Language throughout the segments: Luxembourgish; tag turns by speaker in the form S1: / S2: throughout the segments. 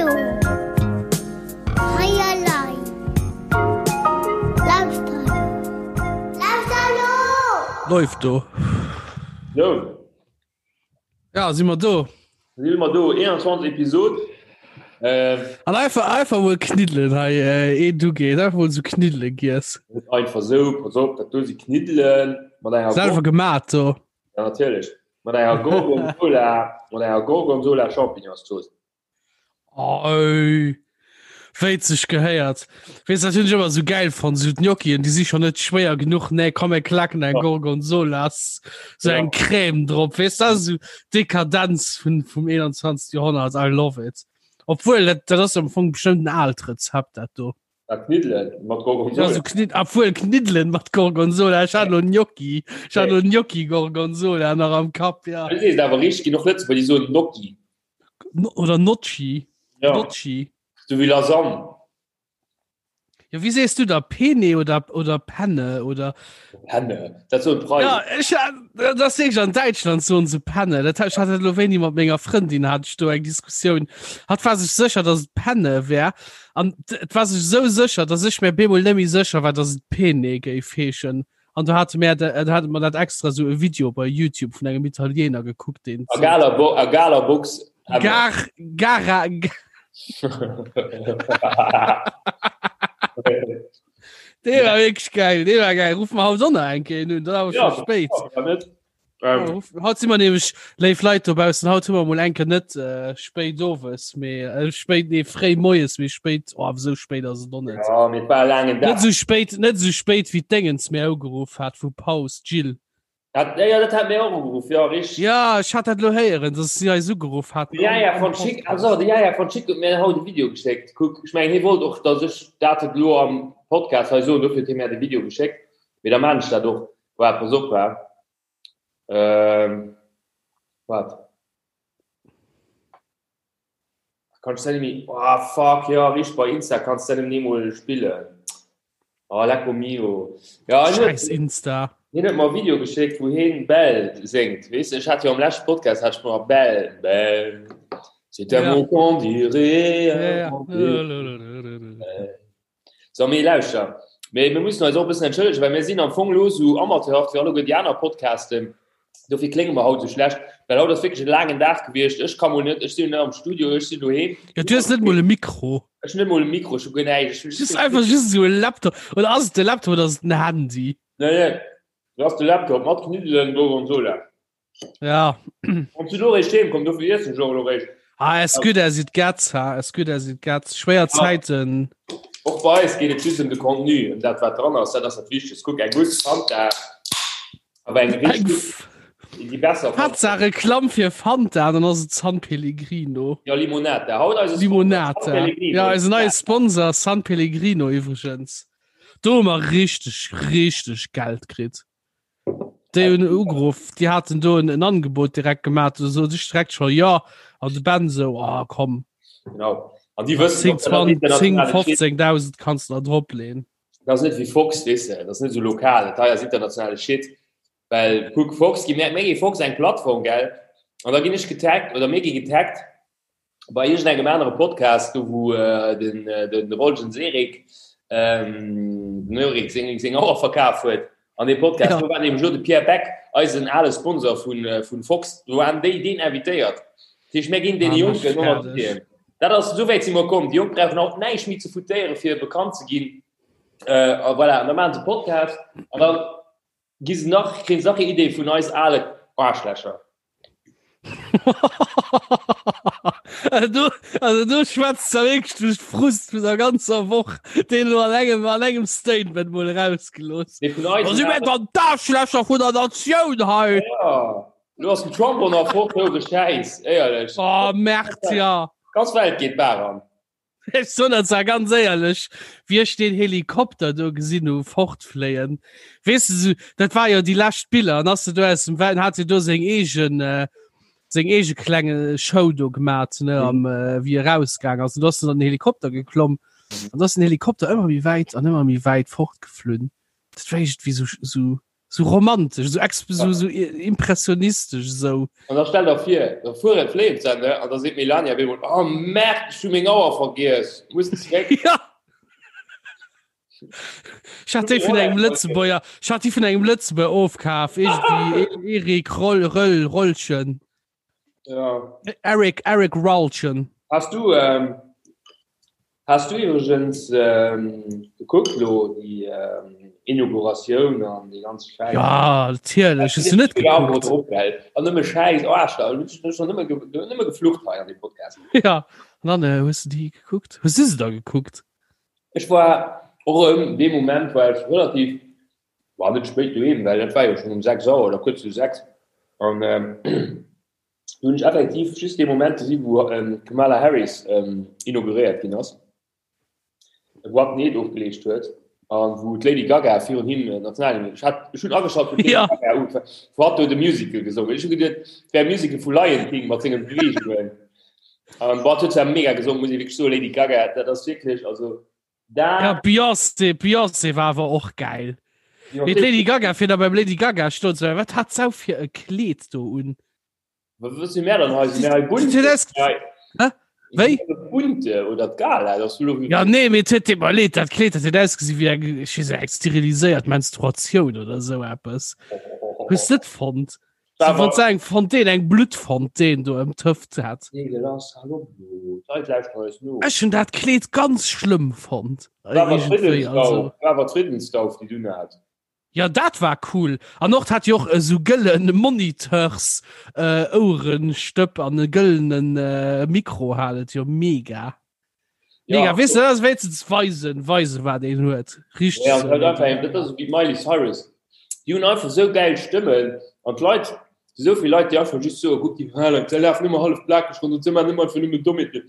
S1: do! Hei elei! Lauschter elo! Lauschter elo!
S2: Läuft do.
S3: So.
S2: Ja, si mer do.
S3: Si mer do, 21 Episod.
S2: Äh, An einfach, einfach mol Kniddelen hei, äh, eh du geet, einfach mol so Kniddelen giess.
S3: Einfach so, pass op, dat do si Kniddelen
S2: mat enger Selwer gemat do.
S3: Ja, natierlech. Mat enger Gorgonzola, mat enger Gorgonzola Champignonszooss.
S2: Oi. Wéi et sech gehéiert. Weess dat hunn ech ëmmer sou gäil fonnt, sou d'Gnocchien, déi si schon net schwéier genuch, nee komm mir klacken eng Gorgonzola, sou eng Crème drop, weess dat ass sou d'Dekadenz vun vum 21. Joerhonnert, I love it. Obwuel dat dat ass am Fong bestëmmt en aalt Rezept dat do.
S3: Ah, Kniddelen mat Gorgonzola.
S2: Ja, so Knidd obwuel Kniddelen mat Gorgonzola, ech hat lo Gnocchi, ech hat lo Gnocchi Gorgonzola nach am Kapp, ja.
S3: Du sees awer richteg, ginn och Lëtzebuerger, déi soen Gnocchi.
S2: Oder Nocci.
S3: Ja.
S2: Nocci.
S3: So wéi Lasagne.
S2: Ja, wéi sees du da? Pene oder, oder Penne oder?
S3: Penne, dat soen d'Preisen.
S2: Ja, ech, dat ass wierklech an Däitschland soen se Penne. Dat hat, ech hat dat elo wéini mat menger Frëndin hat ech do eng Diskussioun. Hatt war sech sécher, datt et Penne wär. An et war sech esou sécher, datt ech mir bemol net méi sécher war, datt et Pene géif heeschen. An do hate mär, do hate mer dat extra sou e Video bei YouTube vun engem Italiener gekuckt, deen
S3: A galer Bo a galer Box.
S2: Gar, gara, Dee war wierklech geil, dee war geil. Ruf mer haut och nach eng Kéier un, dann awer
S3: Ja,
S2: scho spéit.
S3: ja, net.
S2: Ja,
S3: Ähm,
S2: ruf, haut si mer nämlech, léif Leit dobaussen, haut hu mer mol eng Kéier net äh, spéit owes, mee äh, spéit, nee, fréi moies, mee spéit, oh, awer sou spéit ass et och net.
S3: ja, mee et war e laangen
S2: Net
S3: Dag.
S2: sou spéit, net sou spéit wéi d'Déngens mir ugeruff hat vu Paus, d'Jill.
S3: Dat, ja, ja, dat hat mir och ugeruff, ja, richtig.
S2: Ja, ech hat dat lo héieren, dass si eis ugeruff haten.
S3: De Jaja von Schick, also de Jaja von Schick huet mir haut e Video geschéckt. Kuck, ech mengen, hie wollt och, dass ech dat elo am Podcast hei soen, dofir huet hie mir de Video geschéckt. Mee da maan ech dat och. Waart, pass op, wa. Ähm, waart. Kann ich dat méi? Oh, fuck, ja, richtig, bei Insta kannst du dat ni mol spillen. Oh, lecco mio. Ja, hien huet-
S2: Scheiß Insta.
S3: Hien huet mer e Video geschéckt, wou hien Belle séngt. Weess de, ech hat jo am leschte Podcast hat ech mer Belle, Belle, c'est un
S2: Ja.
S3: mot qu'on dirait.
S2: Ja, ja.
S3: So, mee lauschter, mee mir mussen eis och e bëssen entschëllegen, well mir sinn am Fong elo esou amateurhaft wéi alleguer déi aner Podcasten. Dofir klénge mer haut esou schlecht, well haut ass wierklech e laangen Dag gewiescht. Ech ka mol net, ech sinn net am Studio, ech sinn doheem.
S2: Ja, du hues net mol e Mikro.
S3: Ech hunn net mol e Mikro, ech hu guer näischt. Ech
S2: Just einfach just esou e Laptop. Oder ass et de Laptop oder ass et den Handy?
S3: Nee, nee, dat ass de Laptop mat Kniddelen, Gorgonzola.
S2: Ja.
S3: Wann du lo réischt heem komm, dofir iessen ech och elo réischt.
S2: Ah, as good as it gets, ha, as good as it gets. Schwéier Zäiten.
S3: Och bei eis geet et just ëm de Contenu, ëm dat wat dran ass, dat ass dat Wichtegst. Kuck, eng gutt Fanta, awer eng richtig, déi besser Fanta.
S2: Haaptsaach Reklamm fir Fanta, dann ass et San Pellegrino.
S3: Ja, Limonata. Haut eise Sponsor, San
S2: Limonata.
S3: Pellegrino.
S2: Ja, eisen neie Sponsor San Pellegrino iwwregens. Do hu mer richteg, richteg Geld kritt. Déi hunn ugeruff, déi haten do en Angebot direkt gemaach, do sot ech direkt scho jo, an de Ben sou, oh komm.
S3: Genau. An déi wëssen
S2: 10,
S3: och, dat ass
S2: 20, 10,
S3: internationale Shit.
S2: 15.000 kanns de der drop leen.
S3: Dat ass net wéi Fox, weess de, dat ass net esou lokal, dat hei ass internationale Shit. Well kuck, Fox gi mir, mir gi Fox eng Plattform, gell, an da ginn ech getaggt oder mir gi getaggt bei iergendengem anere Podcast, do wou den den Rolgen Serik den Erik seng seng Auer verkaf huet an deem Podcast,
S2: Ja.
S3: do war nämlech elo de Pierre Beck, eisen ale Sponsor vun vun Fox, do waren déi deen invitéiert. Dat heescht, mir ginn deene
S2: Ah,
S3: Jonken
S2: mech
S3: och nach
S2: fäerdeg.
S3: d'Ideen. Dat ass, esou wäit si mer komm. Déi Jonk brauchen haut näischt méi ze foutéiere fir bekannt ze ginn. A voilà, an da maachen se Podcast an da gi se nach, kréien se nach hir Idee vun eis ale Aarschlächer.
S2: Also du, also du schwätzt da wirklich durch Frust vun der ganzer Woch, den du an engem, an engem Statement mol rausgelooss.
S3: Nee, vun eis.
S2: Da si mir dann d'Arschlächer vun der Natioun hei.
S3: Ja. Du ass den Trump och nach fort, hou de Schäiss, éierlech.
S2: Oh, Merd, ja.
S3: Ganz Welt geet d'Baach an.
S2: Ech soen dat zwar ganz éierlech, wéi ech deen Helikopter do gesinn hu fortfléien, weess de, sou, dat war jo déi lescht Biller, an ass de do aus dem Well, hat hie do seng eegen, seng eege klenge Show do gemat, ne, am, wéi e rausgaang ass. An do ass en an den Helikopter geklomm, an do ass den Helikopter ëmmer méi wäit an ëmmer méi wäit fortgeflunn. Dat war iergendwéi sou, sou. Sou romantesch, sou exp sou, sou impressionistesch sou.
S3: An da stell der vir, da fueren d'Flames an, ne, an da seet d'Melania op eemol, Oh merde, ech hu meng Auer vergiess, muss zeréck.
S2: Ja. Ech hat déi vun engem Lëtzebuerger, ech hat déi vun engem Lëtzebuerger ofkaf, iergendwéi Erik Roll, Röll, Rollchen.
S3: Ja.
S2: Eric, Eric Ralchen.
S3: Hast du, ähm, hast du übrigens ähm, gekuckt lo die ähm, Inauguratioun an die ganz
S2: Scheiß? Ja, natierlech. Hast du net
S3: gekuckt? An nëmme Scheiß, oh, Arschloch, ich hab schon nëmme, nëmme geflucht hei an dem Podcast.
S2: Ja, an dann äh, hues du die gekuckt? Hues du se da gekuckt?
S3: Ech war och ëm dee Moment war ech relativ war net spéit doheem, well dat war jo schonn um 6 Auer oder kuerz no 6 an do hunn ech effektiv just dee Moment gesi wou d'Kamala Harris inauguréiert ginn ass, wou hatt den Eed ofgeleescht huet an wou d'Lady Gaga virun him d'Nationalhymn, ech hat, ech hunn ageschalt wou d'Lady Gaga ugefaangen, wou hatt do de Musical gesongen huet. Ech hu geduet, et wär e Musical vu Lion King mat senge Beweegungen an boah, et huet zwar mega gesongen, muss ee wierklech soen, Lady Gaga, dat ass wierklech, also
S2: Da ja, Beyoncé, Beyoncé war awer och geil. Mee d'Lady Gaga fir da beim Lady Gaga stoen ze wat hat s'au fir e Kleed do un?
S3: Wat si mär dann hei? Si mär hei bunte?
S2: Hä? Wéi?
S3: Bunte oder d'Gala? Dass du lo
S2: Ja nee, mee et huet deet mer leed, dat Kleed dat huet ausgesi wéi eng, ech weess net, eng steriliséiert Menstruatioun oder esou eppes. Hues net fonnt? So, wann se eng Fontaine, eng Bluttfontaine do ëm d'Hëft hat. Ech hunn dat Kleed ganz schlëmm fonnt. Ja dat war cool. An och hat jo och esou gëllen Moniteurs äh, Ouerestëpp an e gëllenen äh, Mikro hat et jo mega. Ja. Mega, weißt du, das wéinstens weisen, weisen, wat een huet.
S3: Richtig. Ja, so. einfach, dat ass wéi Miley Cyrus. Déi hunn einfach sou geil Stëmmen an d'Leit, sou vill Leit, déi einfach just soen, guck déi Halen, déi lafen ëmmer hallef plakeg ronderëm, se maachen ëmmer einfach nëmmen Dommheeten.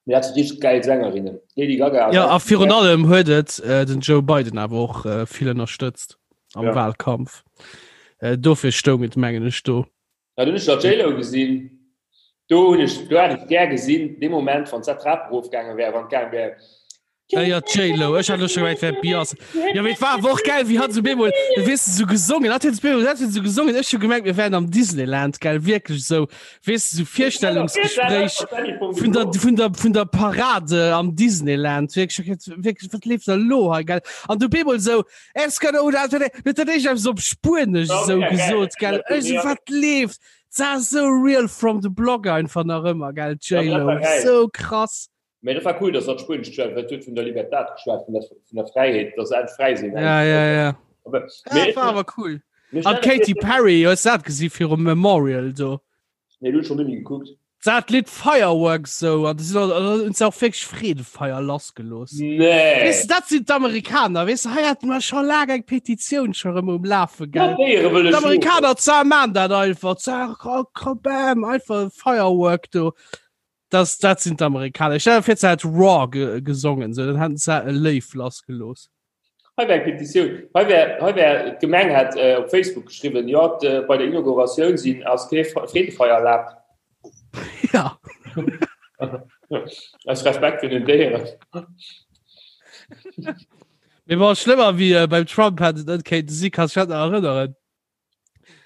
S3: Mee dat si richteg geil Sängerinnen. Lady Gaga
S2: ass Ja, a virun allem huet et äh, den Joe Biden awer och äh, vill ënnerstëtzt am ja. Wahlkampf. Äh, dofir stoung et mengen ech do.
S3: Ja, du hunn ech der J-Lo gesinn. Do hunn ech, do hätt ech gär gesinn, dee Moment, wann d'Trap erofgaange wär, wann d'gaange wär.
S2: Ja, ja, J-Lo. Ech hat elo scho gemengt, wär Beyoncé. Ja, mee et war awer och geil, wéi hatt esou bemol, weess de, esou gesongen hat. Huet bemol, dat huet esou gesongen. Ech hu gemengt, mir wären am Disneyland, gell, wierklech esou, weess de, esou Virstellungsgespréich vun der, vun der, vun der Parade am Disneyland. Wierklech, wierklech, wat leeft da elo hei, gell? An du bemol esou, Es kann oder huet dat éischt eppes op Spuenesch esou gesot, gell? Ech esou, wat leeft? Dat ass esou real from the block einfach nach ëmmer, gell, d'J-Lo, esou krass.
S3: Mee dat war cool, dass hatt Spuenesch geschwat huet, huet vun der Libertad geschwat, vun der, vun der Fräiheet, dass se endlech fräi sinn.
S2: Ja, ja, ja.
S3: Aber,
S2: Ja, dat war awer cool. An d'Katy Perry, hues du dat gesi virum Memorial do?
S3: Nee, du hues schon nëmme gekuckt.
S2: Dat Lidd Fireworks sou an hunn se och wierklech Freedefeier lassgelooss.
S3: Nee.
S2: Weess de, dat sinn d'Amerikaner, weess de, hei hate mer scho laang eng Petitioun scho rëm um Lafe, gell?
S3: Déiere wëlle
S2: schlofen. D'Amerikaner zwar maan dat einfach, zwar bam, einfach Firework do. Das, dat sinn d'Amerikaner. Ech stell mir vir, se hätt Raw ge gesongen, sou, dann hätten se e Léif lassgelooss.
S3: Hei wär eng Petitioun, hei wär, hei wär, d'Gemeng hätt op Facebook geschriwwen, jo, bei der Inauguratioun sinn, ass kee Freedefeier erlaabt.
S2: Ja.
S3: Aus Respekt virun den Déieren.
S2: Mee bon, schlëmmer wéi beim Trump hätt et net kéinte si, kanns dech dat nach erënneren?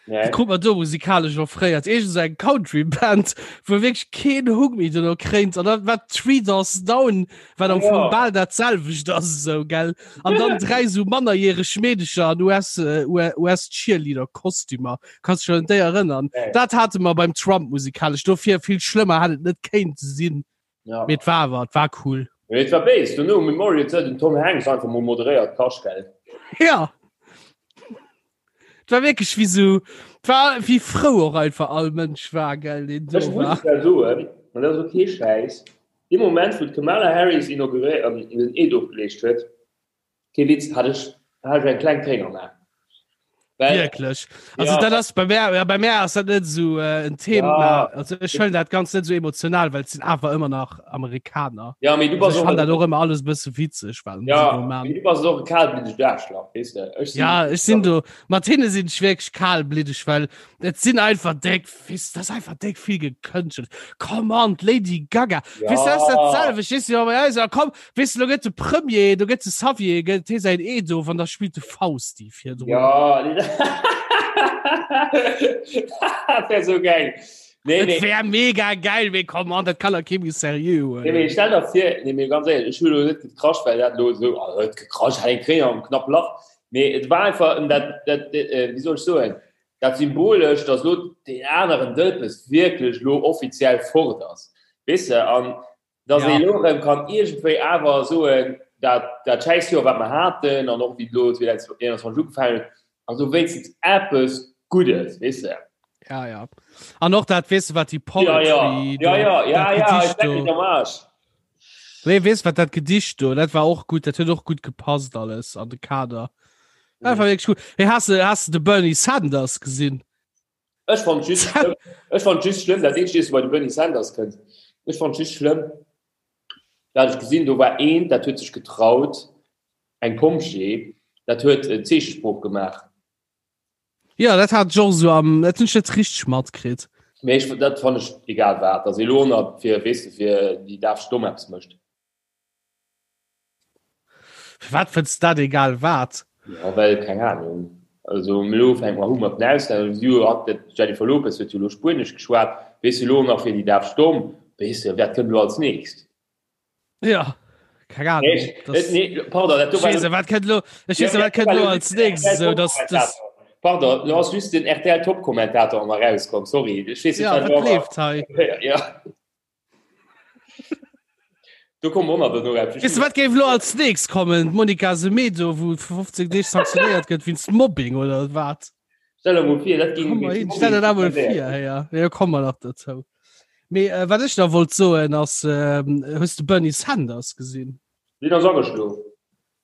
S3: Nee.
S2: Krut mer do musikalesch offréiert. Iergend sou eng Country Band, wou wierklech keen Huck méi dono kréint. An dann war Three Doors Down, wat am Fong bal dat selwecht ass esou, gell? An dann dräi sou mannerjäreg Meedecher an US, US Cheerleader Kostümer. Kanns dech un déi erënnern?
S3: Nee.
S2: Dat hate mer beim Trump musikalesch. Dofir vill schlëmmer hätt et net kéinte sinn.
S3: Ja.
S2: Mee et war awer, et war cool.
S3: Mee et war béis. Dono um Memorial huet den Tom Hanks einfach mol moderéiert, Kaschtgeld.
S2: Ja. Et war wierklech wéi sou, et war wéi frou och einfach all Mënsch war, gell, deen do
S3: Ech muss
S2: war.
S3: zwar soen, an dat ass och kee Schäiss, dee Moment wou d'Kamala Harris inauguréiert, den Eed ofgeleescht huet, Kee Witz, hat ech, hat ech eng kleng Tréin am A.
S2: Well, Wierklech. Also ja. dat ass bei mär, ja, bei mär ass dat net esou äh, en Thema.
S3: Ja.
S2: Also ech huelen dat ganz net esou emotional, well et sinn awer ëmmer nach Amerikaner.
S3: Ja, mee du
S2: Also
S3: bass
S2: ech
S3: och
S2: fan dat och ëmmer alles e bësse witzeg, wat se
S3: ja,
S2: do man.
S3: mee du bass och e kalbliddegt Aarschlach, weess de. Ech sinn,
S2: Ja, ech sinn do, mat hinne sinn ech wierklech kalbliddeg, well et sinn einfach déck, weess, dat ass einfach déck vill gekënschtelt. Come on, d'Lady Gaga,
S3: ja.
S2: weess, dat ass dat selwecht, weess du, bei eis, ja, komm, Weess de, lo gëtt de Premier, do gëtt de Xavier, gëtt hie säin Eed of an da spillt de Fausti virdrun.
S3: Ja, nee. Dat wär sou geil.
S2: Nee, nee. wär mega geil, mee komm an, dat kann der kee méi seriö
S3: huelen. Nee, mee stell der vir, nee, mee ganz éierlech, ech hu lo net gekrasch, well dat lo sou, ah, huet gekrasch, hat eng Tréin am knapp Lach. Mee et war einfach ëm dat, dat, wéi soll ech soen, dat Symbolesch, dass lo deen aneren Dëlpes wierklech lo offiziell fort ass, weess de, an dass ja. ee lo erëm kann iergendwéi awer soen, dat, dat schäiss Joer, wat mer haten, an och wéi lo 2021 ugefaangen huet, also wéinstens eppes Guddes, weess de.
S2: Ja, ja. An och dat, weess de, wat déi
S3: Poetry... Ja, ja, ja, ja, ja, ja, ich leck mich am Arsch.
S2: Nee, weess wat dat Gedicht do, dat war och gutt, dat huet och gutt gepasst alles an de Kader. Dat war wierklech gutt. Hey, has de, has de de Bernie Sanders gesinn?
S3: Ech fand just schlëmm, ech fand just schlëmm, dat eenzegt, bei de Bernie Sanders kënnt. Ech fand just schlëmm, dat ech gesinn, do war een, dat huet sech getraut, eng Pompjee, dat huet Zeechesprooch gemaach.
S2: Ja, dat hat ech och esou am, dat hunn ech net richteg matkritt.
S3: Mee ech, dat fann ech egal wat, dass ee lo nach fir, weess de, fir déi daf Stomm eppes mécht.
S2: Firwat fënns de dat egal wat?
S3: Ja, well, keng Ahnung. Also elo fänke mer u mat den Auslänner, si hu hat d'Jennifer Lopez huet jo elo Spuenesch geschwat, weess de, elo nach fir déi daf Stomm, weess de, wat kënnt elo als nächst?
S2: Ja, keng Ahnung.
S3: Nee, das, nee, pardon, dat do
S2: war. Weess, wat kënnt elo, ech weess, wat kënnt elo als nächst, esou dass
S3: das. Pardon, lo ass just den RTL Top-Kommentator an mer rauskomm, sorry.
S2: Ech weess net,
S3: ja,
S2: wat leeft hei?
S3: Ja. Do kommen och nach duerno eppes.
S2: Weess de wat géif elo als nächst kommen? D'Monica Semedo wou fir 15 Deeg sanktionéiert gëtt wéinst Mobbing oder wat?
S3: Stell der mol vir, dat
S2: ging Komm hin, stell der dat mol vir, hey, ja. Ja, komme mer nach dozou. Mee äh, wat ech da wollt soen ass, ähm, hues de Bernie Sanders gesinn?
S3: Deen ass ageschlof.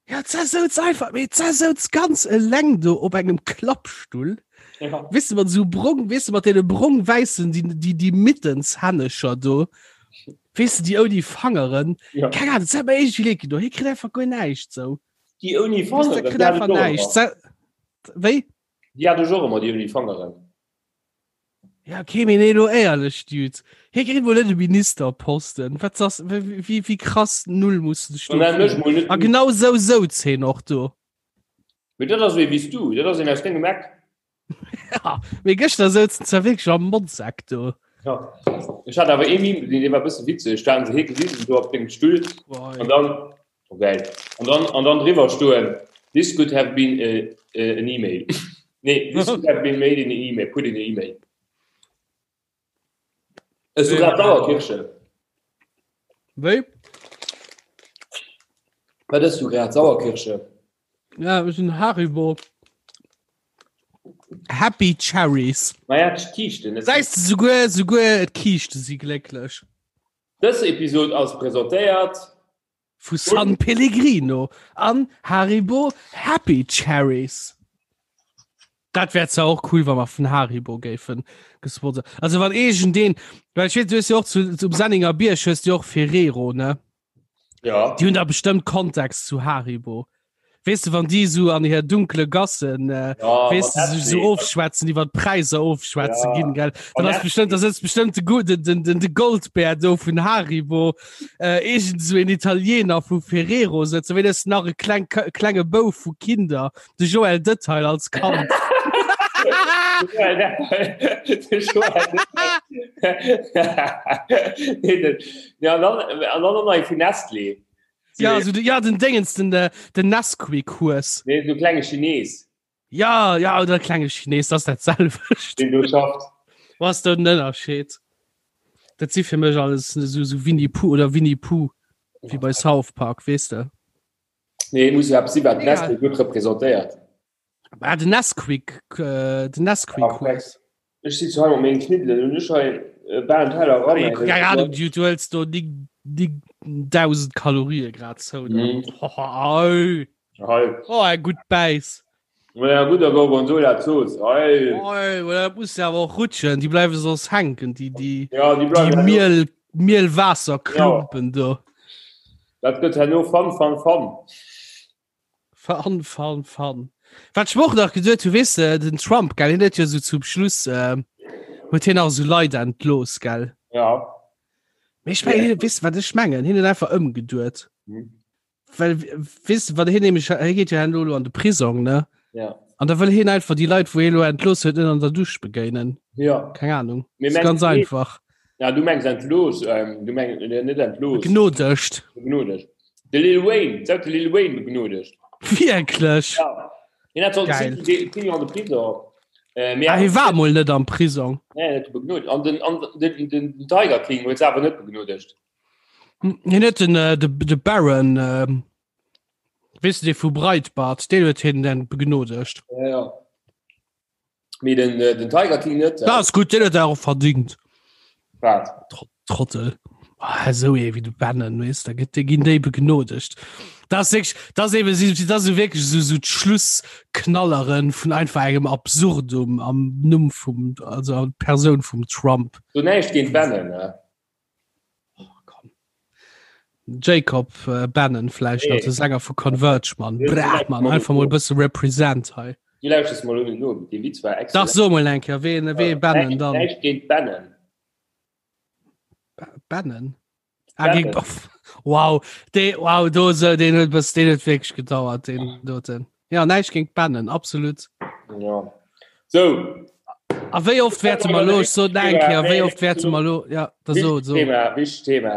S2: Ja, d'Sa souz einfach, mee d'Sa souz ganz eleng do op engem Klappstull.
S3: Ja.
S2: Weess de, mat esou brong, weess de, mat deene brong-wäissen, déi, déi, déi Mittenshännecher do. Weess de, déi ouni Fangeren.
S3: Ja.
S2: Keng Ahnung, dat huet mer iergendwéi leed gedoen. Hie kritt einfach guer näischt sou.
S3: Déi ouni
S2: Weess de,
S3: Fangeren,
S2: kritt
S3: déi hat
S2: einfach
S3: ech och
S2: näischt.
S3: ëmmer.
S2: Sa, wéi?
S3: Déi hat ech och ëmmer, déi ouni Fangeren.
S2: Ja, okay, mee nee, lo éierlech, Dude. Hie kritt mol net e Ministerposten. Wat ass, wéi, wéi krass null muss de dech do
S3: Dann nenn mech
S2: fillen?
S3: mol net
S2: A genau sou souz hien och do.
S3: Mee dat ass ee wéi s du, dat ass een aus dengem Eck.
S2: Ja, mee gëschter souz en zwar wierklech am Motzeck do.
S3: Ja. Ech hat awer ee Meme gesinn, dee war e bësse witzeg. Da haten se hie gewisen do op dengem Stull an dann, oh geil, an dann, an dann driwwer stoen, This could have been a, a, an email. Nee, this could have been made in an email, put in an email. Ech so grad Sauerkirsche.
S2: Wéi?
S3: Wat ëss du grad? Sauerkirsche?
S2: Ja, ech sinn Haribo. Happy Cherries.
S3: Naja, d'Kiischten.
S2: Säis de souguer, souguer d'Kiischte si glécklech.
S3: Dës Episod ass presentéiert
S2: Vu San Pellegrino an Haribo Happy Cherries. Dat wär zwar och cool, wa mer vun Haribo géifen gesponsert. Also wann iergendeen, well ech weess, du hues jo och zu, zum Senninger Bierg hues du jo och Ferrero, ne?
S3: Ja.
S2: Déi hunn da bestëmmt Contacts zu Haribo. Weess de, wann déi esou an hir dunkle Gassen, äh,
S3: Ja,
S2: weess de,
S3: mat
S2: sech esou
S3: Nestlé.
S2: ofschwätzen, iwwer d'Präisser ofschwätze
S3: Ja.
S2: ginn, gell? Dann
S3: Mat
S2: ass bestimmt, da sëtzt bestimmt de, Gu- den, den, den, de Goldbär do vun Haribo, äh, irgend so en Italiener vu Ferrero sëtzen, wéi das nach e kleng, klenge Bouf vu Kinder, de Joël Detail als Kand.
S3: Ja, an dann, an dann nach ee vun Nestlé.
S2: Ja, also, ja den Dingens, den, äh, den Nesquik-Hues.
S3: Nee, so klenge Chines.
S2: Ja, ja, oder klenge Chines, das dat selwecht.
S3: Den du schafft.
S2: Was den Ënnerscheed? Dat si fir mech alles so, so Winnie Pooh oder Winnie Pooh, wie bei South Park, weess de?
S3: Nee, muss ja si wat Nestlé gutt representéiert.
S2: Ah, den Nesquik, äh, den Nesquik-Hues.
S3: Ech sitz hei mat mengen Kniddelen un ech hei äh, bal en Teller ran.
S2: Ey, Keine Ahnung, du, du hëls do déi, déi 1000 Kalorie grad zou.
S3: Mhm.
S2: Oh,
S3: Hei.
S2: oh, eng gutt Bäiss.
S3: Ja, gudder Gorgonzola Zooss. Hei.
S2: Oh, dat muss ja awer och rutschen, déi bleiwe soss hänken, déi, déi,
S3: Ja, déi
S2: déi
S3: bleiwen herno.
S2: Miel, Mielwaasserklumpen do.
S3: Dat gëtt herno Fun, Fun, Fun.
S2: Fun, fun, fun. Wat ech mer och nach geduet hu, weess de, den Trump, gell, hien huet jo sou zum Schluss, äh, huet hien nach sou Leit entlooss, gell?
S3: Ja.
S2: Mee ech mengen, hien, weess de, wat ech mengen? Hien huet einfach ëmgeduet.
S3: Mhm.
S2: Well, weess de, wat hien nämlech, hie geet jo herno elo an de Prisong, ne?
S3: Ja.
S2: An da wëll hien einfach déi Leit, wou hie lo entlooss huet, net an der Dusch begéinen.
S3: Ja.
S2: Keng Ahnung. Mir mengen, ganz einfach.
S3: Ja, du mengs entlooss, ähm, du meng, äh, net entlooss.
S2: Begnodegt.
S3: Begnodegt. De Lil Wayne, sag de Lil Wayne begnodegt.
S2: Wierklech?
S3: Ja. Hien hat
S2: Geil.
S3: 10 Joer an de Prison.
S2: Äh, ah, hie war mol net am Prisong.
S3: Nee, net begnodegt. An den, an den, den, den Tiger King huet se awer net begnodegt.
S2: Hien huet den, äh, de, de Baron, äh, weess du, dee vu Breitbart, deen huet hien dann begnodegt.
S3: Ja, ja. Mee den, äh, den Tiger King net.
S2: Äh. Das ist gut, den huet er och verdingt.
S3: Wat?
S2: Trottel. Ah, so ee wéi de Bannon, weess, da gëtt, ginn déi begnodegt. Das ist wirklich, das eben, das ist wirklich so, so d'Schlussknalleren vun einfach engem Absurdum am Numm vum, also an Persoun vum Trump.
S3: So näischt géint Bannon, ne?
S2: Oh, komm. Jacob äh, Bannon vläicht nach, de Sänger vu Converge, Mann. Brah, Mann, einfach mol e bësse represent hei.
S3: Du lauschters mol un no, dee Witz war
S2: excellent. Dach, so mol eng Kéier, ween, wee Bannon dann?
S3: Näischt géint Bannon.
S2: Bannon? Ah, géint, wow, dee, wow, do so, deen huet bëss, deen huet wierklech gedauert, deen doten. Ja, näischt géint Bannon, absolut.
S3: Ja. So.
S2: A wéi oft wäerte mer lo, ech sot eng Kéier, wéi oft wäerte mer lo, ja, da so, so.
S3: Thema, wichteg Thema.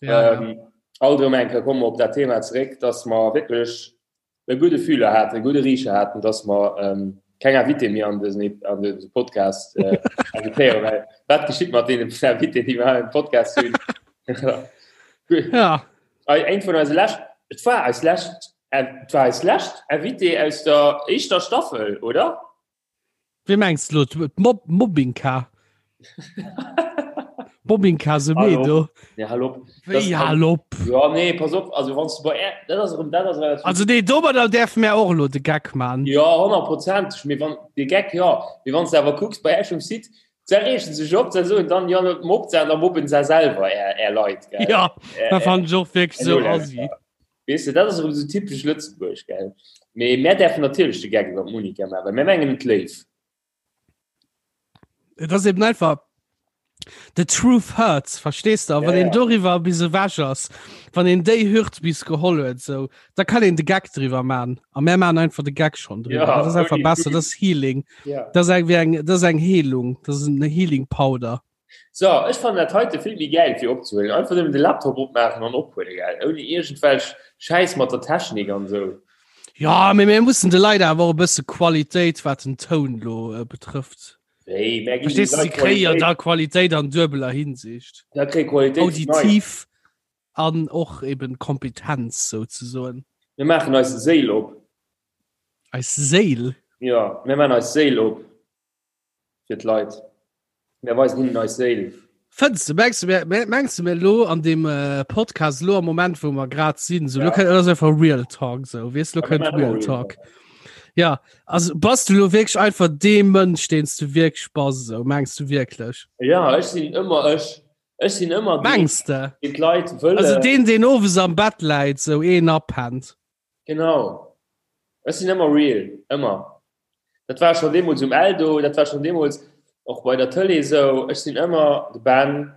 S3: Ja, ähm, ja. Alt erëm eng Kéier komme mer op dat Thema zeréck, dass mer wierklech e gudde Fühler haten, e gudde Richer haten, dass mer ähm, keng Invité méi an dësen an dëse Podcast äh, invitéieren, well wat geschitt mat deenen Invité, déi mer am Podcast hunn?
S2: ja.
S3: Eng vun eise lescht, et war eis lescht, et war eis lescht Invité aus der éischter Staffel, oder?
S2: Wéi mengs du lo? D'Mob Mobbingka? Mobbingka Semedo?
S3: Nee, hal op.
S2: Wéi hal op?
S3: Ja, nee, pass op, also wann du bei Är, dat ass erëm, dat ass relativ.
S2: Also nee, domadder däerfe mär och elo de Geck man.
S3: Ja, honnertprozenteg, mee wann, de Geck jo, mee wann s de awer kucks bei Äech um Site, se reegen sech op, se soen dann, jo, mobbt se an da mobben se selwer är, är Leit,
S2: gell? Ja, dat fannen ech och wierklech esou assi.
S3: Weess de, dat ass erëm esou typesch Lëtzebuerg, gell? Mee mär däerfen natierlech de Geck iwwer d'Monica maachen, well mär mengen et léif.
S2: Et ass eben einfach, the truth hurts, verstees de? A wann een doriwwer bis ewech ass, wann een déi Hürd bis geholl huet, esou, da kann een de Geck driwwer maachen. A mär maachen einfach de Geck schonn driwwer. Dat ass einfach besser, dat ass Healing. Dat ass eng, wéi eng, dat ass eng Heelung, dat ass en Healing Powder.
S3: So, ech fannen dat heite vill méi gäil fir opzehuelen. Einfach nëmmen de Laptop opmaachen an ophuelen, gell? Ouni iergendwelch Schäiss mat der Technik an esou.
S2: Ja, mee mir mussen de Leit awer och e bësse Qualitéit, wat den Toun lo äh, betrëfft.
S3: Wéi, mär
S2: ginn de Verstees du, si
S3: Leit
S2: kréie jo
S3: Qualitéit.
S2: da Qualitéit an duebeler Hinsicht.
S3: Da kréie Qualitéit vun eis.
S2: Auditiv an och eben Kompetenz souzesoen.
S3: Mir maachen eis Séil op.
S2: Eis Séil?
S3: Jo, mir maachen eis Séil op. Fir d'Leit. Mir weisen hinnen eis Séil.
S2: Fënns de, mengs du, mir, mengs du mir lo an dem äh, Podcast lo am Moment wou mer grad sinn, so, ja. lo kënnt, das einfach Real Talk so, wees lo kënnt Real Talk. Ja, also bass du lo wierklech einfach dee Mënsch, deen s du wierklech bass, so mengs du wierklech?
S3: Ja, ech sinn ëmmer ech. Ech sinn ëmmer
S2: deen, Mengs de?
S3: deen d'Leit wëllen.
S2: Also deen, deen owes am Bett läit, sou een apennt.
S3: Genau. Ech sinn ëmmer real, ëmmer. Dat war schon deemools um Eldo, dat war schon deemools och bei der Tëlee esou. Ech sinn ëmmer de Ben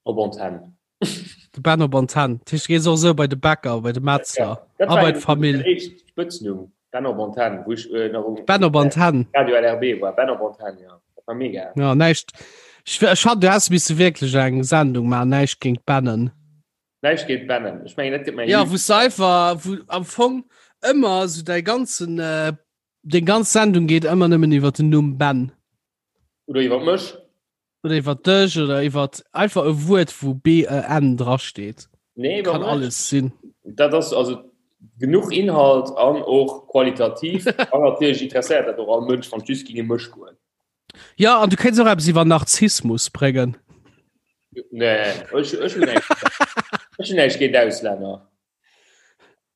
S3: op Antenn.
S2: De Ben op Antenn. Dat heescht, du gees och esou bei de Bäcker, bei de Metzler
S3: Ja, dat
S2: a
S3: war
S2: bei
S3: eben
S2: d'Famill.
S3: mäin éischt Spëtznumm, Ben op Antenn, wou ech äh, nach um
S2: Ben op Antenn.
S3: Radio LRB war. Ben op Antenn, ja. Dat war mega.
S2: Ja, näischt. Ech, ech hat, du häss misse wierklech eng Sendung maachen, näischt géint Bennen.
S3: Näischt géint Bennen. Ech mengen, dat gëtt mäin
S2: Ja, wou s einfach, wou am Fong ëmmer sou däi ganzen, äh, deng ganz Sendung geet ëmmer nëmmen iwwer den Numm Ben.
S3: Oder iwwer mech.
S2: Oder iwwer dech oder iwwer einfach e Wuert, wou B-E-N drasteet.
S3: Nee, iwwer
S2: Kann
S3: mech.
S2: alles sinn.
S3: Dat ass also genuch Inhalt an och qualitativ. An natierlech interesséiert dat och all Mënsch, wann et just géing ëm mech goen.
S2: Ja, an du kéints och eppes iwwer Narzissmus bréngen.
S3: Nee, ech, ech hunn näischt. Ech hunn näischt géint Auslänner.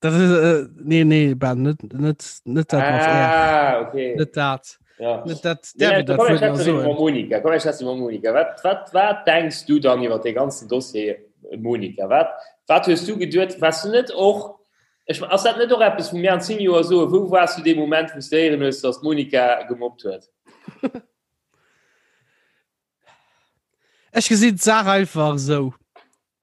S2: Dat ist, äh, nee, nee, Ben, net, net, net dat mat R.
S3: Ah, okay.
S2: Net dat.
S3: Ja.
S2: Net dat,
S3: Nee,
S2: därf ik dat
S3: komm,
S2: Wuert
S3: ech
S2: nach
S3: schwätze iwwer
S2: soen.
S3: Monika. Komm, ech schwätze iwwer Monika. Wat, wat, wat denks du dann iwwer dee ganzen Dossier Monika? Wat, wat hues du geduet? Waars du net och, ech, ass dat net och eppes, wou mir an 10 Joer soen, wou waars du dee Moment, wou s du héieren hues, dass d'Monika gemobbt huet?
S2: Ech gesinn d'Saach einfach esou.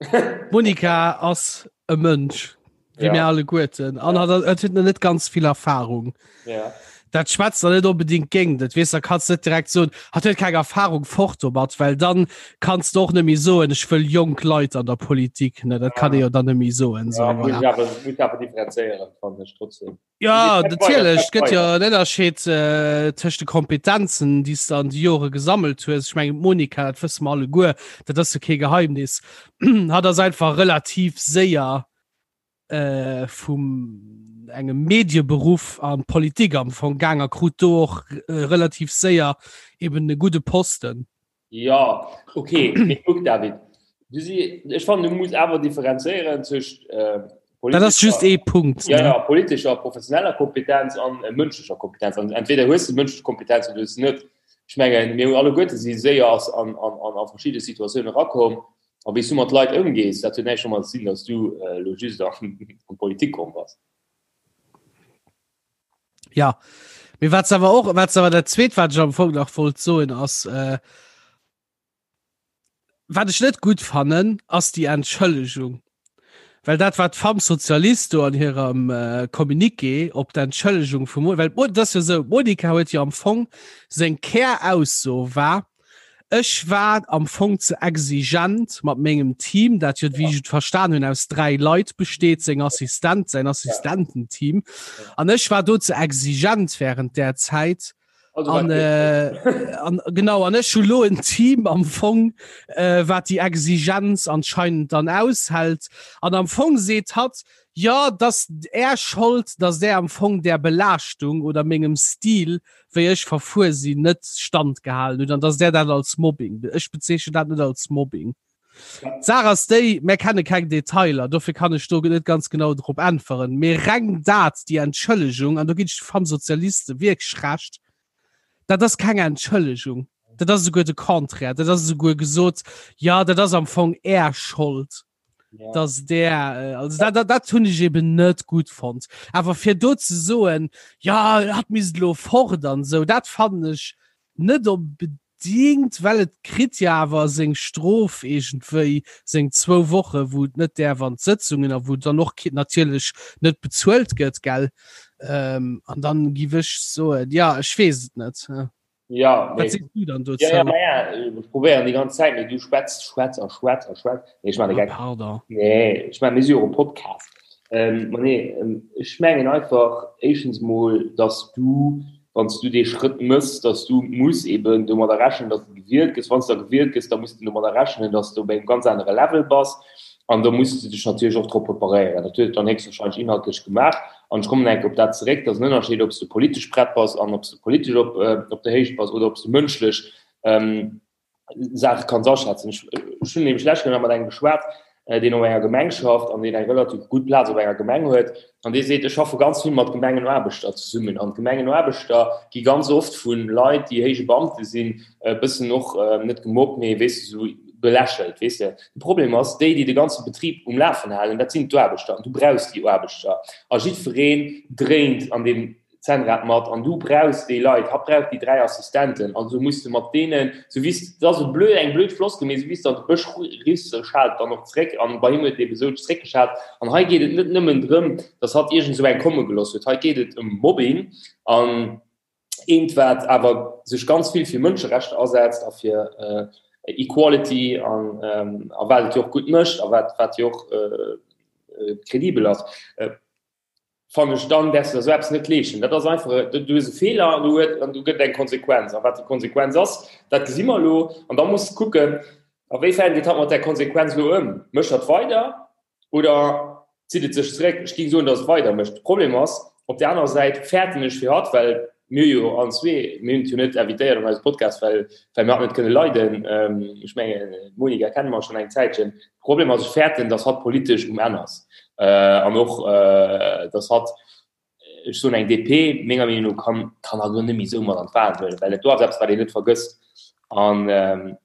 S2: D'Monika ass e Mënsch, wéi
S3: Ja.
S2: mir alleguerten, an
S3: Ja.
S2: hat, hat huet nach net ganz vill Erfahrung.
S3: Ja.
S2: Dat schwätzt der net onbedingt géint et, weess, da kanns net direkt soen, hatt huet keng Erfahrung, fort domat, well dann kanns de och net méi soen, ech wëll jonk Leit an der Politik, ne, dat kann ee jo dann net méi soen.
S3: Ja, muss ich awer, muss ich awer differenzéieren, fannen ech trotzdem.
S2: Ja, natierlech, et gëtt jo en Ënnerscheed äh, tëscht de Kompetenzen, déi s de an de Jore gesammelt hues. Ech mengen, d'Monika, dat wësse mer alleguer, dat ass jo kee Geheimnis, hatt ass einfach relativ séier äh, vum engem Medieberuff an d'Politik am Fong gaang a krut do och äh, relativ séier eben e gudde Posten.
S3: Ja, okay, mee kuck David, du si, ech fannen du muss awer differenzéieren zwëscht äh,
S2: Dat ass just ee Punkt.
S3: Ja, ja, politescher, professioneller Kompetenz an äh, mënschlecher Kompetenz. An entweder hues du mënschlech Kompetenz oder hues du net. Ech mengen, mir hunn alleguerte si séier ass an, an, an, a verschidde Situatioune rakomm. A wéi s du mat Leit ëmgees, dat huet näischt domat ze dinn, datt s du elo just an d'Politik komm bass.
S2: Ja, mee wat awer och, wat awer dat Zweet, wat ech am Fong nach wollt soen, ass, äh, wat ech net gutt fannen, ass déi Entschëllegung. Well dat, wat d'Femmes Socialistes do an hirem äh, Communiqué op d'Entschëllegung vum, well dat ass jo esou, d'Monica huet jo am Fong seng Kärausso war, Ech war am Fong ze exigent mat mengem Team, dat jo, wéi ech et verstan hunn, aus 3 Leit besteet, seng Assistent, säin Assistententeam. An ech war do ze exigent während där Zäit. An, äh, an, genau, an ech hu lo en Team am Fong, äh, wat déi Exigenz anscheinend dann aushält. An am Fong seet hatt, jo, dass Är Schold, dass Där am Fong där Belaaschtung oder mengem Stil wéi ech verfuer sinn, net standgehalen hutt an dass där dat als Mobbing, ech bezeechnen dat net als Mobbing. D'Saach ass déi, mär kenne keng Detailer, dofir kann ech do net ganz genau drop äntweren, mee reng dat, déi Entschëllegung, an do ginn ech de Femmes-Socialistes wierklech Recht, dat ass keng Entschëllegung, dat ass esouguer de Contraire, dat ass esouguer gesot, jo, dat ass am Fong Är Schold. ja. dass der äh, also dat, dat, dat hunn ech eben net gut fand awer fir do ze soen ja hat mis lo fort an so dat fand ech net unbedingt well et kritt ja awer seng Strof irgendwéi seng zwou Woche wou et net däerf an d'Sëtzungen a wou dann och natierlech net bezuelt gëtt gell ähm, an dann giff ech soen ja ech weess et net.
S3: Ja, Wat sees du dann dozou? Ja, ja, ma ja, ech probéieren déi ganz Zäit, mee du schwätz, schwätz a schwätz a schwätz. Nee, ech maachen de Geck.
S2: Oh, pardon.
S3: Nee, ech maachen, mir si jo och e Podcast. Ähm, ma nee, ech mengen einfach éischtens mol, dass du, wann s du dee Schrëtt mëss, dass du muss eben domadder rechnen, dass du gewielt gëss. Wann s du da gewielt gëss, da muss du domadder rechnen, dass du op engem ganz anere Level bass. An do muss de dech natierlech och drop preparéieren. Dat huet et dann héchstwahrscheinlech inhaltlech gemaach. An ech kommen eng Kéier op dat zeréck, et ass en Ënnerscheed, ob s de politesch prett bass an ob s de politesch op, op der Héicht bass oder ob s de mënschlech Saache kanns aschätzen. Ech, ech hunn nämlech d'lescht Kéier nach mat engem geschwat, deen op enger Gemeng schafft an deen eng relativ gutt Plaz op enger Gemeng huet. An dee seet, ech schaffe ganz vill mat Gemengenaarbechter zesummen. An d'Gemengenaarbechter gi ganz oft vu Leit, déi héije Beamte sinn, e bëssen och net gemobbt, mee weess de, esou belächelt, weess de. De Problem ass, déi, déi de ganze Betrib um Lafen halen, dat sinn d'Aarbechter. An du brauchs déi Aarbechter. A jiddwereen dréint an deem Zännrad mat. An du brauchs déi Leit. Hatt brauch déi 3 Assistenten. Also muss de mat deenen, sou wéi s, dat ass e blöd, eng blöd Floskel, mee sou wéi s de an de Bësch riffs, sou schaalt et dann och zréck. An bei him huet et ebe sou zréckgeschaalt. An hei geet et net nëmmen drëm, datt hatt iergend esou eng komme gelooss huet. Hei geet et ëm Mobbing. An Eent wat awer sech ganz vill fir Mënscherechter asetzt a fir Equality an a wat et jo och gutt mécht a wat wat jo och kredibel ass, fannen ech, dann däerfs de der esou eppes net leeschten. Dat ass einfach, du hues e Feeler an du huet an du gëtt eng Konsequenz. A wat déi Konsequenz ass, dat gesi mer elo. An da muss de kucken, a wéi fern geet hatt mat där Konsequenz elo ëm. Mécht hatt weider Oder zitt et sech zeréck? Ech géing soen, datt et weider mécht. De Problem ass, op där anerer Säit fäerten ech fir hatt, well mir jo allen zwee, mir hunn et jo net invitéiert an eise Podcast, well well mir hatt net kënne leiden. Ech mengen, d'Monica kenne mer schonn eng Zäitchen. De Problem ass, ech fäerten, datt hatt politesch um Enn ass an och, datt hatt, ech soen eng DP, menger Meenung no, kann kann hatt elo net méi esou mat an d'Wahlen huelen, well et do ass eppes, wat een net vergësst. An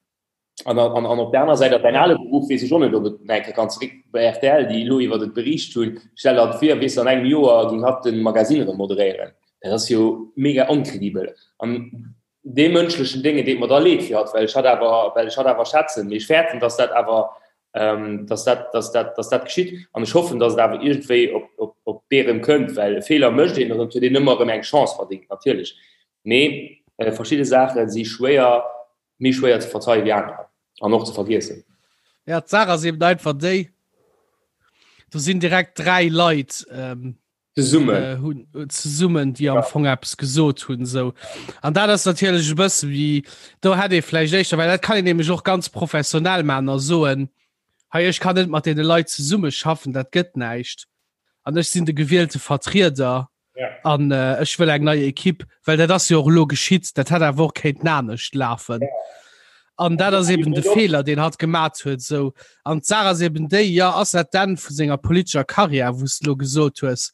S3: An, an, an op der aner Säit, däin ale Beruff, weess ech och net, ob et nach eng Kéier kann zeréck bei rtl, déi elo iwwert et beriicht hunn. Stell der vir, weess de, an engem Joer géing hatt de Magasinn erëm moderéieren. Dat ass jo mega onkredibel. An dee mënschlechen Dénge deet mer da leed fir hatt, well ech hatt awer, well ech hatt awer schätzen. Mee ech fäerten, dass dat awer, dass dat, dass dat, dass dat geschitt. An ech hoffen, dass et awer iergendwéi op, op, op. d'Bee erëm kënnt, well e Feeler mécht een an et huet een ëmmer erëm eng Chance verdéngt natierlech. Mee verschidde Saache si schwéier, méi schwéier ze verzeie wéi anerer an och ze vergiessen.
S2: Ja, d'Saach ass eben einfach déi, do sinn direkt 3 Leit
S3: zesummen äh,
S2: hunn äh, zesummen déi am Fong eppes gesot hunn sou an dat ass natierlech e bësse wéi do hätt ee vläicht éischter well dat kann een nämlech och ganz professionell man a soen hei ech kann net mat deene Leit zesumme schaffen dat gëtt näischt an ech sinn de gewielte Vertrieder
S3: ja.
S2: an äh, ech wëll eng nei Ekipp well dat ass jo och elo geschitt dat hätt awer och kéinten anescht lafen.
S3: Ja.
S2: An dat ass eben de Feeler, deen hatt gemat huet. Sou. An d'Saach ass eben déi, jo, ass dat d'Enn vu senger politescher Karriär, wou s de elo gesot hues,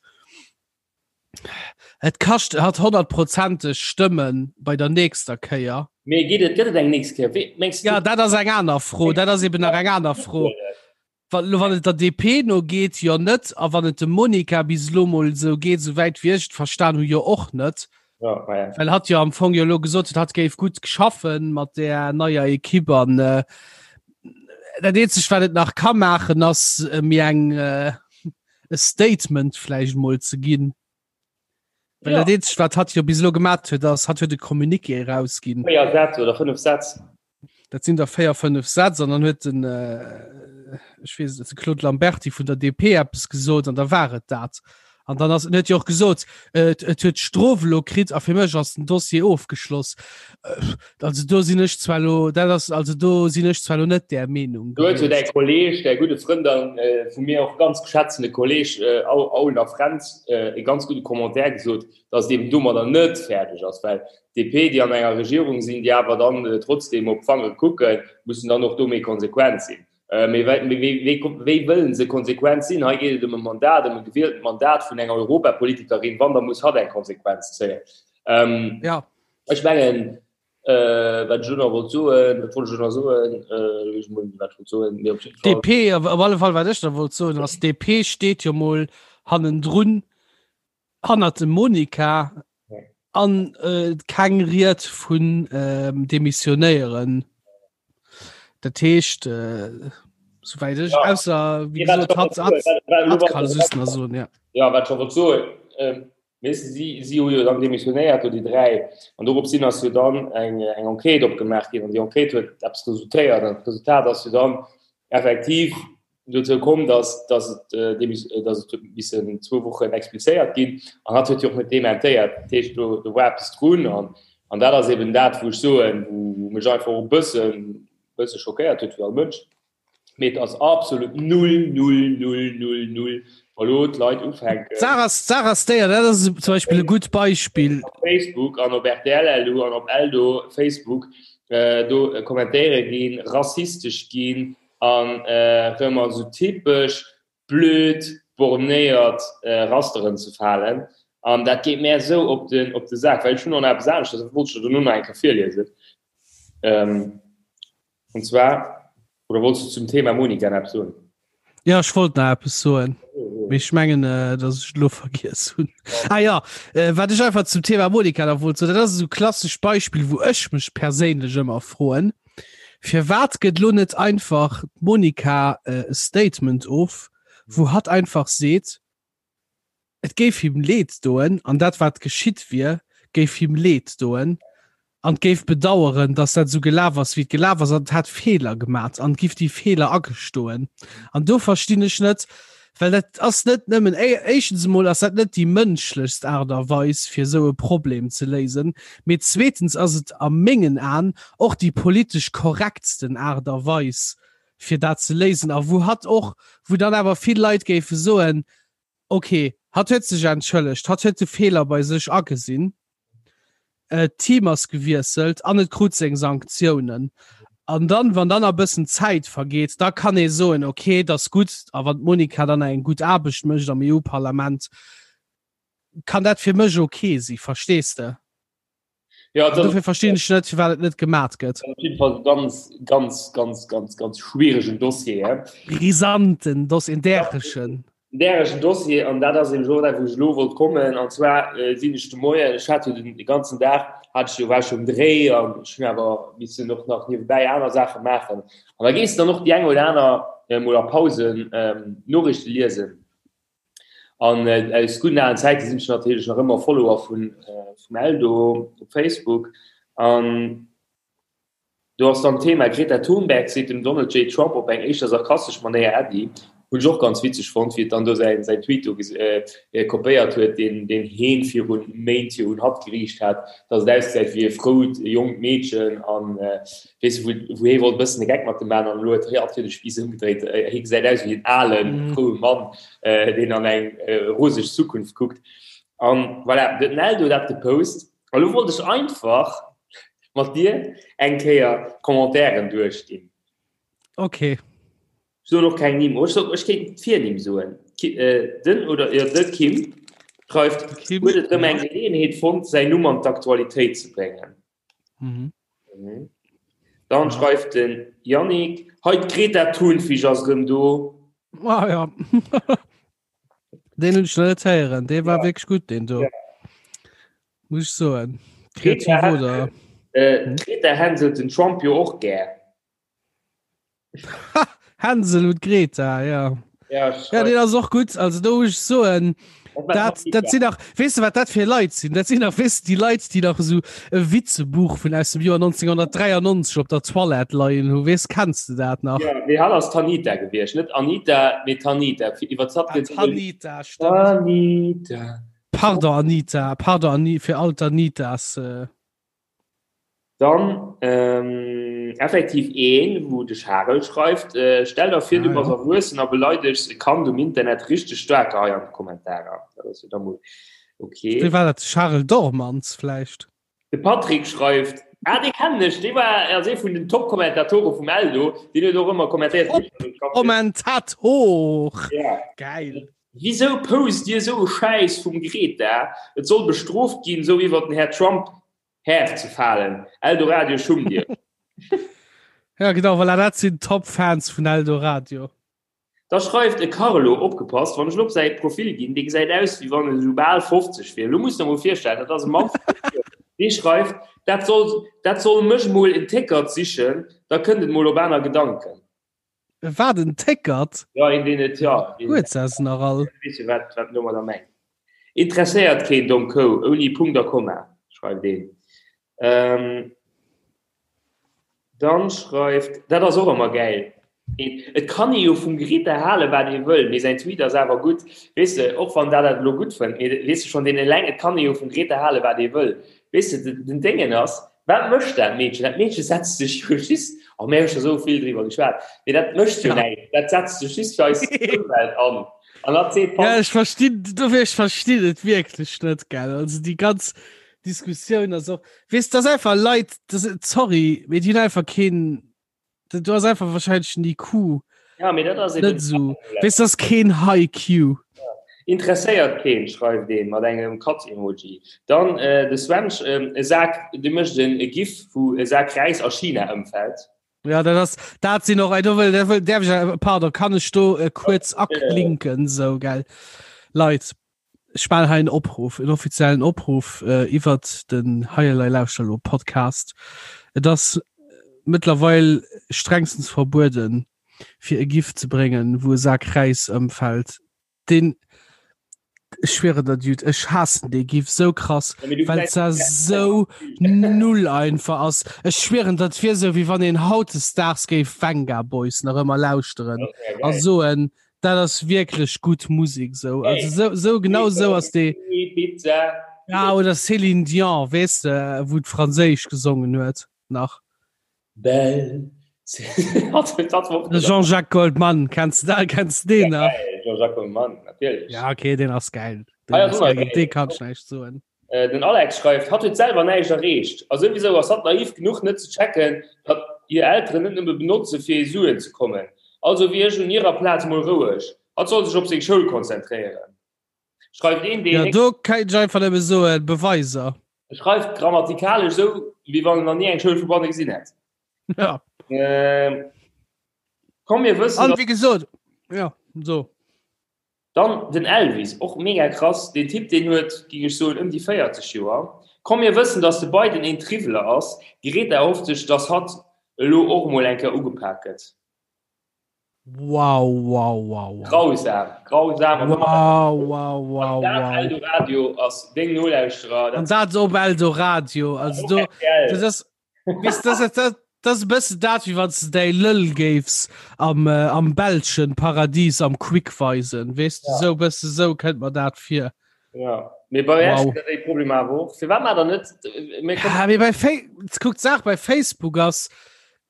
S2: et kascht hatt honnertprozenteg Stëmme bei der nächster Kéier.
S3: Mee geet et, gëtt et eng nächst Kéier? Wéi mengs du?
S2: Ja, dat ass eng aner Fro. Dat ass eben nach eng aner Fro. Wann elo wann et der DP no geet, jo net. A wann et dem Monica bis elo mol esou geet, esou wäit wéi ech et verstan hu, jo och net.
S3: Ja, ma ja.
S2: Well hatt jo am Fong jo elo gesot huet, hatt géif gutt schaffen mat där neier Ekipp an äh, dat eenzegt wat et nach ka maachen ass äh, mir eng äh, e Statement vläicht mol ze ginn. Well
S3: Ja.
S2: dat eenzegt wat hatt jo bis elo gemat huet ass, hatt huet e Communiqué erausginn.
S3: 4 Sätz oder 5 Sätz.
S2: Dat sinn der 4, 5 Sätz an dann huet den äh, ech weess net, de Claude Lamberty vun der DP eppes gesot an da war et dat. An dann ass en huet jo och gesot, äh, et, et huet d'Strof elo kritt a fir mech ass den Dossier ofgeschloss. Äh, also do sinn ech zwar elo, dat ass, also do sinn ech zwar elo net där Meenung
S3: Do huet jo däi
S2: gewiescht.
S3: Kolleg, däi gudde Frënd an äh, vu mir och ganz geschätzene Kolleg äh, Au, Aulner Fränz äh, e ganz gudde Commentaire gesot, datt et eben domadder net fäerdeg ass, well DP, déi an enger Regierung sinn, déi awer dann trotzdem op d'Fangere kucken, mussen dann och do méi konsequent sinn. Mee wéi wëllen se konsequent sinn? Hei geet et ëm e Mandat, ëm e gewieltent Mandat vun enger Europapolitikerin. Wann, da muss hatt eng Konsequenz zéien.
S2: Jo.
S3: Ech mengen, wat ech elo nach wollt soen, wat wollt ech elo nach soen? Ech mol wat ech wollt soen, mee op jidde Fall.
S2: DP, op alle Fall, wat ech nach wollt soen, ass, DP steet jo mol hannendrun. Hannert dem Monica an äh, keng Ried vun ähm, demissionéieren. Dat heescht äh, soweit ech
S3: ja.
S2: ausser wie gesagt, hat, hat, hat kann es nach so, ja.
S3: Ja wat schon so ähm, si si hu jo dann demissionéiert do déi 3 an dorop sinn ass jo dann eng eng Enquête opgemaach ginn an déi Enquête huet eppes resultéiert an d'Resultat ass jo dann effektiv dozou komm, dass, dass et, äh, dass et huet missen zwou Wochen explizéiert ginn an hat huet jo och net dementéiert. Dat heescht, do, do war eppes drun an, an dat ass eben dat, wou ech soen, wou, wou mech einfach och e bëssen, bësse schockéiert huet wéi all Mënsch. Mee et ass absolut null, null, null, null, null, wa lo d'Leit ufänken.
S2: D'Saach ass, d'Saach ass déi, an dat ass zum Beispill e gutt Beispill.
S3: Op Facebook an op RTL.lu an op Eldo Facebook äh, do kommentéiere ginn, rassistesch ginn, An erëm an esou typesch blöd bornéiert Rasteren ze falen. An dat geet mär esou op den, op de Sak, well ech hunn och nach eppes aneschters, dat wollt ech der dono nach eng Kéier virliesen. Und zwar, oder wollts du zum Thema Monika nach eppes soen?
S2: Jo, ech wollt nach eppes soen, mee ech mengen, datt ech et elo vergiess hunn. Ah jo, wat ech einfach zum Thema Monika nach wollt soen, dat ass esou e klassescht Beispill, wou ech mech perséinlech ëmmer froen, Firwat gëtt lo net einfach d'Monica e Statement of, wou hatt einfach seet, et géif him leed doen an dat wat geschitt wier, géif him leed doen an géif bedaueren, datt dat esou gelaf ass wéi et gelaf ass an et hätt Feeler gemat an giff déi Feeler agestoen. An do verstinn ech net, well dat ass net nëmmen, éischtens emol ass dat net déi mënschlechst Aart a Weis fir esou e Problem ze léisen, mee zweetens ass et a mengen Aen och déi politesch korrektsten Aart a Weis fir dat ze léisen a wou hatt och, wou dann awer vill Leit géife soen, ok, hatt huet sech entschëllegt, hatt huet de Feeler bei sech agesinn. D'Team ass gewiesselt an et krut seng Sanktiounen. An dann, wann dann a bëssen Zäit vergeet, da kann ee soen, okay, et ass gutt. A wann d'Monica dann eng gutt Aarbecht mécht am EU-Parlament, kann dat fir mech okay si, verstees de?
S3: Ja,
S2: An dofir verstinn ech net, firwat et net gemat gëtt.
S3: Op jidde Fall e ganz, ganz, ganz, ganz, ganz schwieregen Dossier, he?
S2: Brisanten Dossier, en däregen.
S3: En däregen Dossier, an dat ass eben och dat, wou ech elo wollt kommen. An zwar sinn ech de Moien, ech hat jo den ganzen Dag, hat ech jo, war ech jo um Dréi an ech hunn awer missen och nach niewebäi aner Saache maachen. An da gees de dann och déi eng oder aner mol a Pausen Noriichte liesen. An aus gudden alen Zäite sinn ech natierlech nach ëmmer Follower vun vum Eldo op Facebook. An do ass dann d'Thema Greta Thunberg seet dem Donald J. Trump op eng éischter sarkastesch Manéier Äddi. Hunn ech och ganz witzeg fonnt, wéi et dann do säin säin Tweet do kopéiert huet, deen deen heen virun Méint jo un hatt geriicht hat, dass et ausgesäit wéi e frout jonkt Meedchen an weess de, wou wou hee wollt e bëssen e Geck mat em maachen an elo huet hatt jo de Spiiss ëmgedréit, hee gesäit aus wéi en alen, froue Mann, deen an eng roseg Zukunft kuckt. An voilà, huet den Eldo dat gepost. A lo wollt ech einfach mat dir eng Kéier d'Commentairen duerchginn.
S2: Okay.
S3: Ech soen och keng Nimm. Oh, ech soen, ech kéint d'Virnimm soen. Ki, äh, den oder jo, de Kim schreift,
S2: Kim,
S3: huet et rëm
S2: ja.
S3: eng Geleeënheet fonnt, säin Numm an d'Aktualitéit ze bréngen.
S2: Mhm.
S3: Mhm. Dann
S2: Ja.
S3: schreift den Yannick, hei d'Greta Thunfisch ass rëm do.
S2: Ah, ja. Den hunn ech nach net héieren. Dee war
S3: Ja.
S2: wierklech gutt, deen do.
S3: Ja.
S2: Muss ech soen.
S3: Greta
S2: Kreativ oder?
S3: Äh,
S2: Hm?
S3: d'Greta hänselt den Trump jo och gär.
S2: Hänsel und Greta, ja.
S3: Ja,
S2: ja den ass och gut. Also do muss ich soen, dat, dat sinn nach, weess du wat dat fir Leit sinn? Dat sinn nach weess du déi Leit, déi nach esou e Witzebuch vun aus dem Joer 1993 op der Toilette leien hu. Weess, kenns du dat nach?
S3: Ja, mee hatt ass d'Tanita gewiescht, net Anita, mee Tanita. Fir iwwer d'Zapp
S2: Ah,
S3: gëtt
S2: Tanita, stimmt.
S3: Tanita.
S2: Pardon Anita, pardon Ani fir all d'Anitas. Äh.
S3: Dann effektiv een, wou de Charel schreift, Stell der vir, du bass erwuessen a beleidegs e Kand um Internet richteg staark hei an de Kommentarer. Dat ass jo da mol ok.
S2: Wéi war dat? Charel Dormans vläicht?
S3: De Patrick schreift, Ah, dee kennen ech, dee war ass ee vun den Top-Kommentatore vum Eldo, deen huet och ëmmer kommentéiert.
S2: Top-Kommentator! Gäil!
S3: Wisou post dir esou e Schäiss vum Greta? Et soll bestrooft ginn, esou iwwert den Här Trump Här ze falen. Eldoradio schumm dir.
S2: Ja genau, voilà, dat sinn Top-Fans vun Eldoradio.
S3: Da schreift e Carlo, opgepasst, wann ech elo op säi Profil ginn, dee gesäit aus wéi wann en esou bal 50 wier. Elo muss der mol virstellen, dat ass e Mann vu 50 Joer, dee schreift, dat soll, dat soll mech mol en Téckert sichen, da kënnt et mol op aner Gedanken.
S2: Wat en Téckert?
S3: Ja, een deen et, ja.
S2: Huet se se nach all?
S3: Weess jo wat, wat en domadder mengt. Interesséiert keen, domm Kou, ouni Punkt a Komma, schreift een. Ähm, dann schreift, dat ass och ëmmer gäil, een, et kann ee jo vum Greta halen, wat ee wëll, mee säin Tweet ass awer gutt, weess de, och wann dat dat elo gutt fënnt, mee weess de, schonn deen eleng, et kann ee jo vum Greta halen, wat ee wëll, weess de, den Déngen ass, Wat mécht dat Meedchen? Dat Meedche setzt sech jo just, oh mir hu scho sou vill driwwer geschwat, mee dat mécht jo näischt, dat setzt sech just fir eis Ëmwelt an. An dat seet
S2: Ja, ech verstinn, dofir ech verstinn et wierklech net, gell. Also déi ganz Diskussioun ass och, weess, dat ass einfach Leit, dat, sorry, mee déi hunn einfach keen, Du hast einfach wahrscheinlich en IQ.
S3: Ja, mee dat ass
S2: eben net so. Wees das keen High Q.
S3: Ja. Interesséiert keen, schreift een mat engem Katz-Emoji. Dann äh, de Sven, äh, e Sak, de mécht en e GIF, wou e Sak Räis a China ëmfält.
S2: Ja, dat ass, dat sinn och, do wëll, dat wëll, däerf ech, pardon, kann ech do äh, kuerz aklinken, sou, gell. Leit, Ech maachen hei en Opruff, en offiziellen Opruff iwwert den Hei Elei Lauschter Elo Podcast. Et ass mëttlerweil strengstens verbueden, fir e Gif ze bréngen, wou e Sak Räis ëmfält. Deen, ech schwieren der Dude, ech haassen dee Gif sou krass, well et sou null einfach ass. Ech schwieren, dat wier sou, wéi wann een hautdesdaags géif Venga Boys nach ëmmer lauschteren a soen, Dat ass wierklech gutt Musik sou. Also sou, sou genau sou ass déi.
S3: Pizza.
S2: Ja oder Céline Dion, weess de, wou d'Franséisch gesongen huet nach.
S3: Belle.
S2: De Jean-Jacques Goldman, kenns de dat, kenns de deen nach?
S3: Jean-Jacques Goldman, natierlech.
S2: Ja okay, deen ass gäil. Deen ass gäil, géint dee kann ech näischt soen.
S3: Den Alex schreift, Hatt huet selwer näischt erreecht. A souwisou ass hatt naiv genuch net ze checken, datt hir Elteren net nëmme benotze fir u Suen ze kommen. Also wier ech un hirer Plaz mol roueg. Hatt soll sech op seng Schoul konzentréieren. Schreift een, deen.
S2: Jo, do kéint ech einfach nëmme soen, Beweiser.
S3: E schreift grammatikalesch esou, wéi wann en nach ni eng Schoul vu banne gesinn hätt.
S2: Ja.
S3: Komm mir wëssen,
S2: An wéi gesot, jo, so.
S3: Dann den Elvis, och mega krass, deen Typ deen huet, ging ech soen, ëm déi 40 Joer. Komm mir wëssen dass de Biden een Triwweler ass, d'Greta erhofft sech dass hatt elo och mol eng Kéier ugepak gëtt.
S2: Wow, wow, wow, wow.
S3: Grausam, grausam.
S2: Wow, wow, wow, wow.
S3: Eldoradio ass deng Nolauschterer.
S2: An dat op Eldoradio. Also do, das ass, weißt, das, das, das, das ass e bëssen dat, wéi wann s de däi Lëll géifs am, äh, am belschen Paradies am Quick weisen. Weess du, ja. sou bësse sou kënnt mer dat vir.
S3: Ja. Mee bei wow. déi Problem awer och. Firwat mat der net?
S2: Ja, mee bei Fa kuck, d'Saach bei Facebook ass,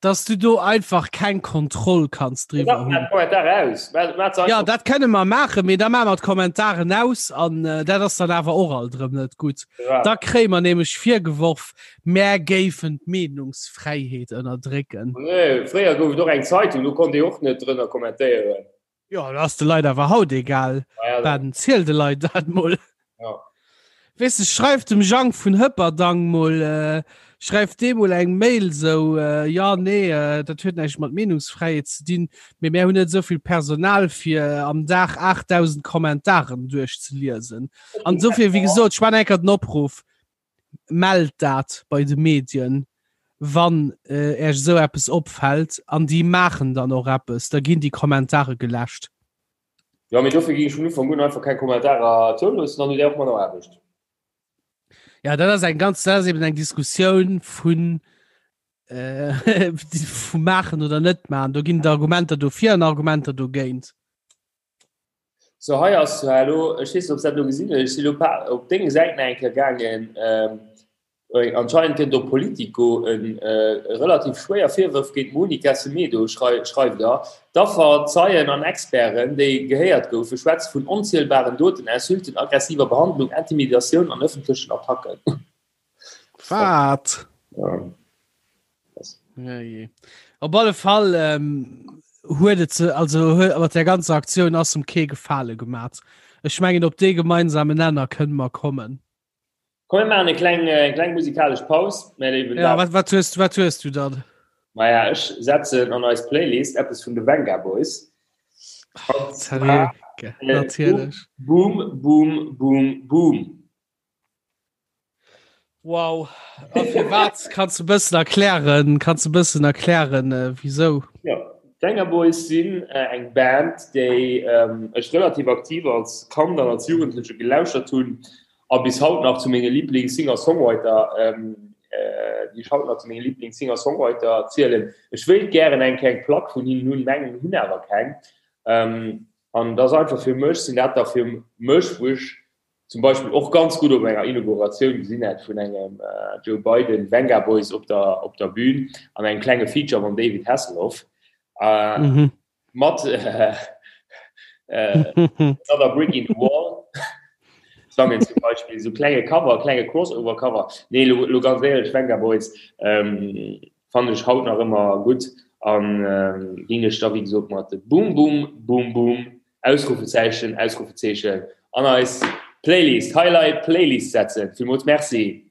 S2: dass du do einfach keng Kontroll kanns driwwer hunn. Ja dat kënne mer maachen, mee da maache mer d'Kommentaren aus an äh, dat ass dann awer och alt erëm net gutt. Ja. Da kréie mer nämlech virgeworf, mär géifen d'Meenungsfräiheet ënnerdrécken.
S3: Nee, fréier gouf et och eng Zeitung, do konnt ee och net drënner kommentéieren.
S2: Jo, dat ass de Leit awer haut egal. Ja, Ben, ziel de Leit dat mol.
S3: Ja.
S2: Weess de, schreif dem Jang vun Hëpperdang mol, äh, schreif deem mol eng Mail sou, äh, ja, nee, äh, dat huet näischt mat Meenungsfräiheet ze dinn, mee mär hunn net esou vill Personal fir äh, am Dag 8000 Kommentaren duerchzeliesen. An dofir, wéi gesot, ech maachen eng Kéier den Opruff, Mellt dat bei de Medien, wann Äech esou eppes opfält, an déi maachen dann och eppes, da ginn déi Kommentare geläscht.
S3: Jo, mee dofir géing ech vun Ufank un einfach keng Kommentarer zouloossen, dann hutt Dir och manner Aarbecht.
S2: Ja, dat ass eng ganz, dat ass eben eng Diskussioun vun vu maachen oder net maachen. Do ginn et Argumenter dofir an Argumenter dogéint.
S3: So hei ass elo, ech weess net, ob s dat elo gesinn hues, ech sinn elo op deng Säit nach eng Kéier gaangen. Anscheinend gëtt op Politico e relativ schwéier Virwërf géint d'Monica Semedo, schreift der. D'Affer, Zeien an Experten, déi gehéiert goufen, schwätze vun onzielbaren Doten, Insulten, aggressiver Behandlung, Intimidatioun an ëffentlechen Attacken.
S2: Wat?
S3: Ja.
S2: Ja, je. Op alle Fall ähm, huet et se, also huet, mat der ganzer Aktioun ass em kee Gefale gemat. Ech mengen op dee gemeinsamen Nenner kënne mer kommen.
S3: Komm mir maachen eng kleng, eng kleng musikalesch Paus, mä léiwen
S2: Ja, wat, wat hues, wat hues du dann?
S3: Maja, ech setzen an eis Playlist eppes vun de Vengaboys.
S2: Oh, Seriö, äh, natierlech.
S3: Boom, boom, boom, boom.
S2: Wow. A firwat kanns du bëssen erklären, kanns du bëssen erklären äh, wieso?
S3: Ja, d'Vengaboys sinn äh, eng Band, déi ähm, ech relativ aktiv als Kand an als Jugendleche gelauschert hunn a bis haut nach zu menge Lieblings-Singer-Songwriter, ähm, äh, déi ech haut nach zu menge Lieblings-Singer-Songwriter zielen. Ech wéilt gären eng kleng Plack vun hinnen hunn, mengen hunn awer keng. Ähm, an dat ass einfach fir mech, sinn dat da fir mech, wou ech zum Beispill och ganz gutt op enger Inauguratioun gesinn hätt vun engem Joe Biden, Vengaboys op der, op der Bühn an engem klenge Feature mam David Hasselhoff äh, mhm. mat äh, äh, Another Brick in the Wall sangen zum Beispiel so klenge Cover, klenge Crossover Cover. Nee, lo, lo ganz éierlech Vengaboys ähm, fannen ech haut nach ëmmer gutt an ähm, ginn ech da wéi gesot mat Boom Boom Boom Boom Ausrufezeichen, Ausrufezeichen an eis Playlist, Highlight Playlist setzen. Villmools Merci.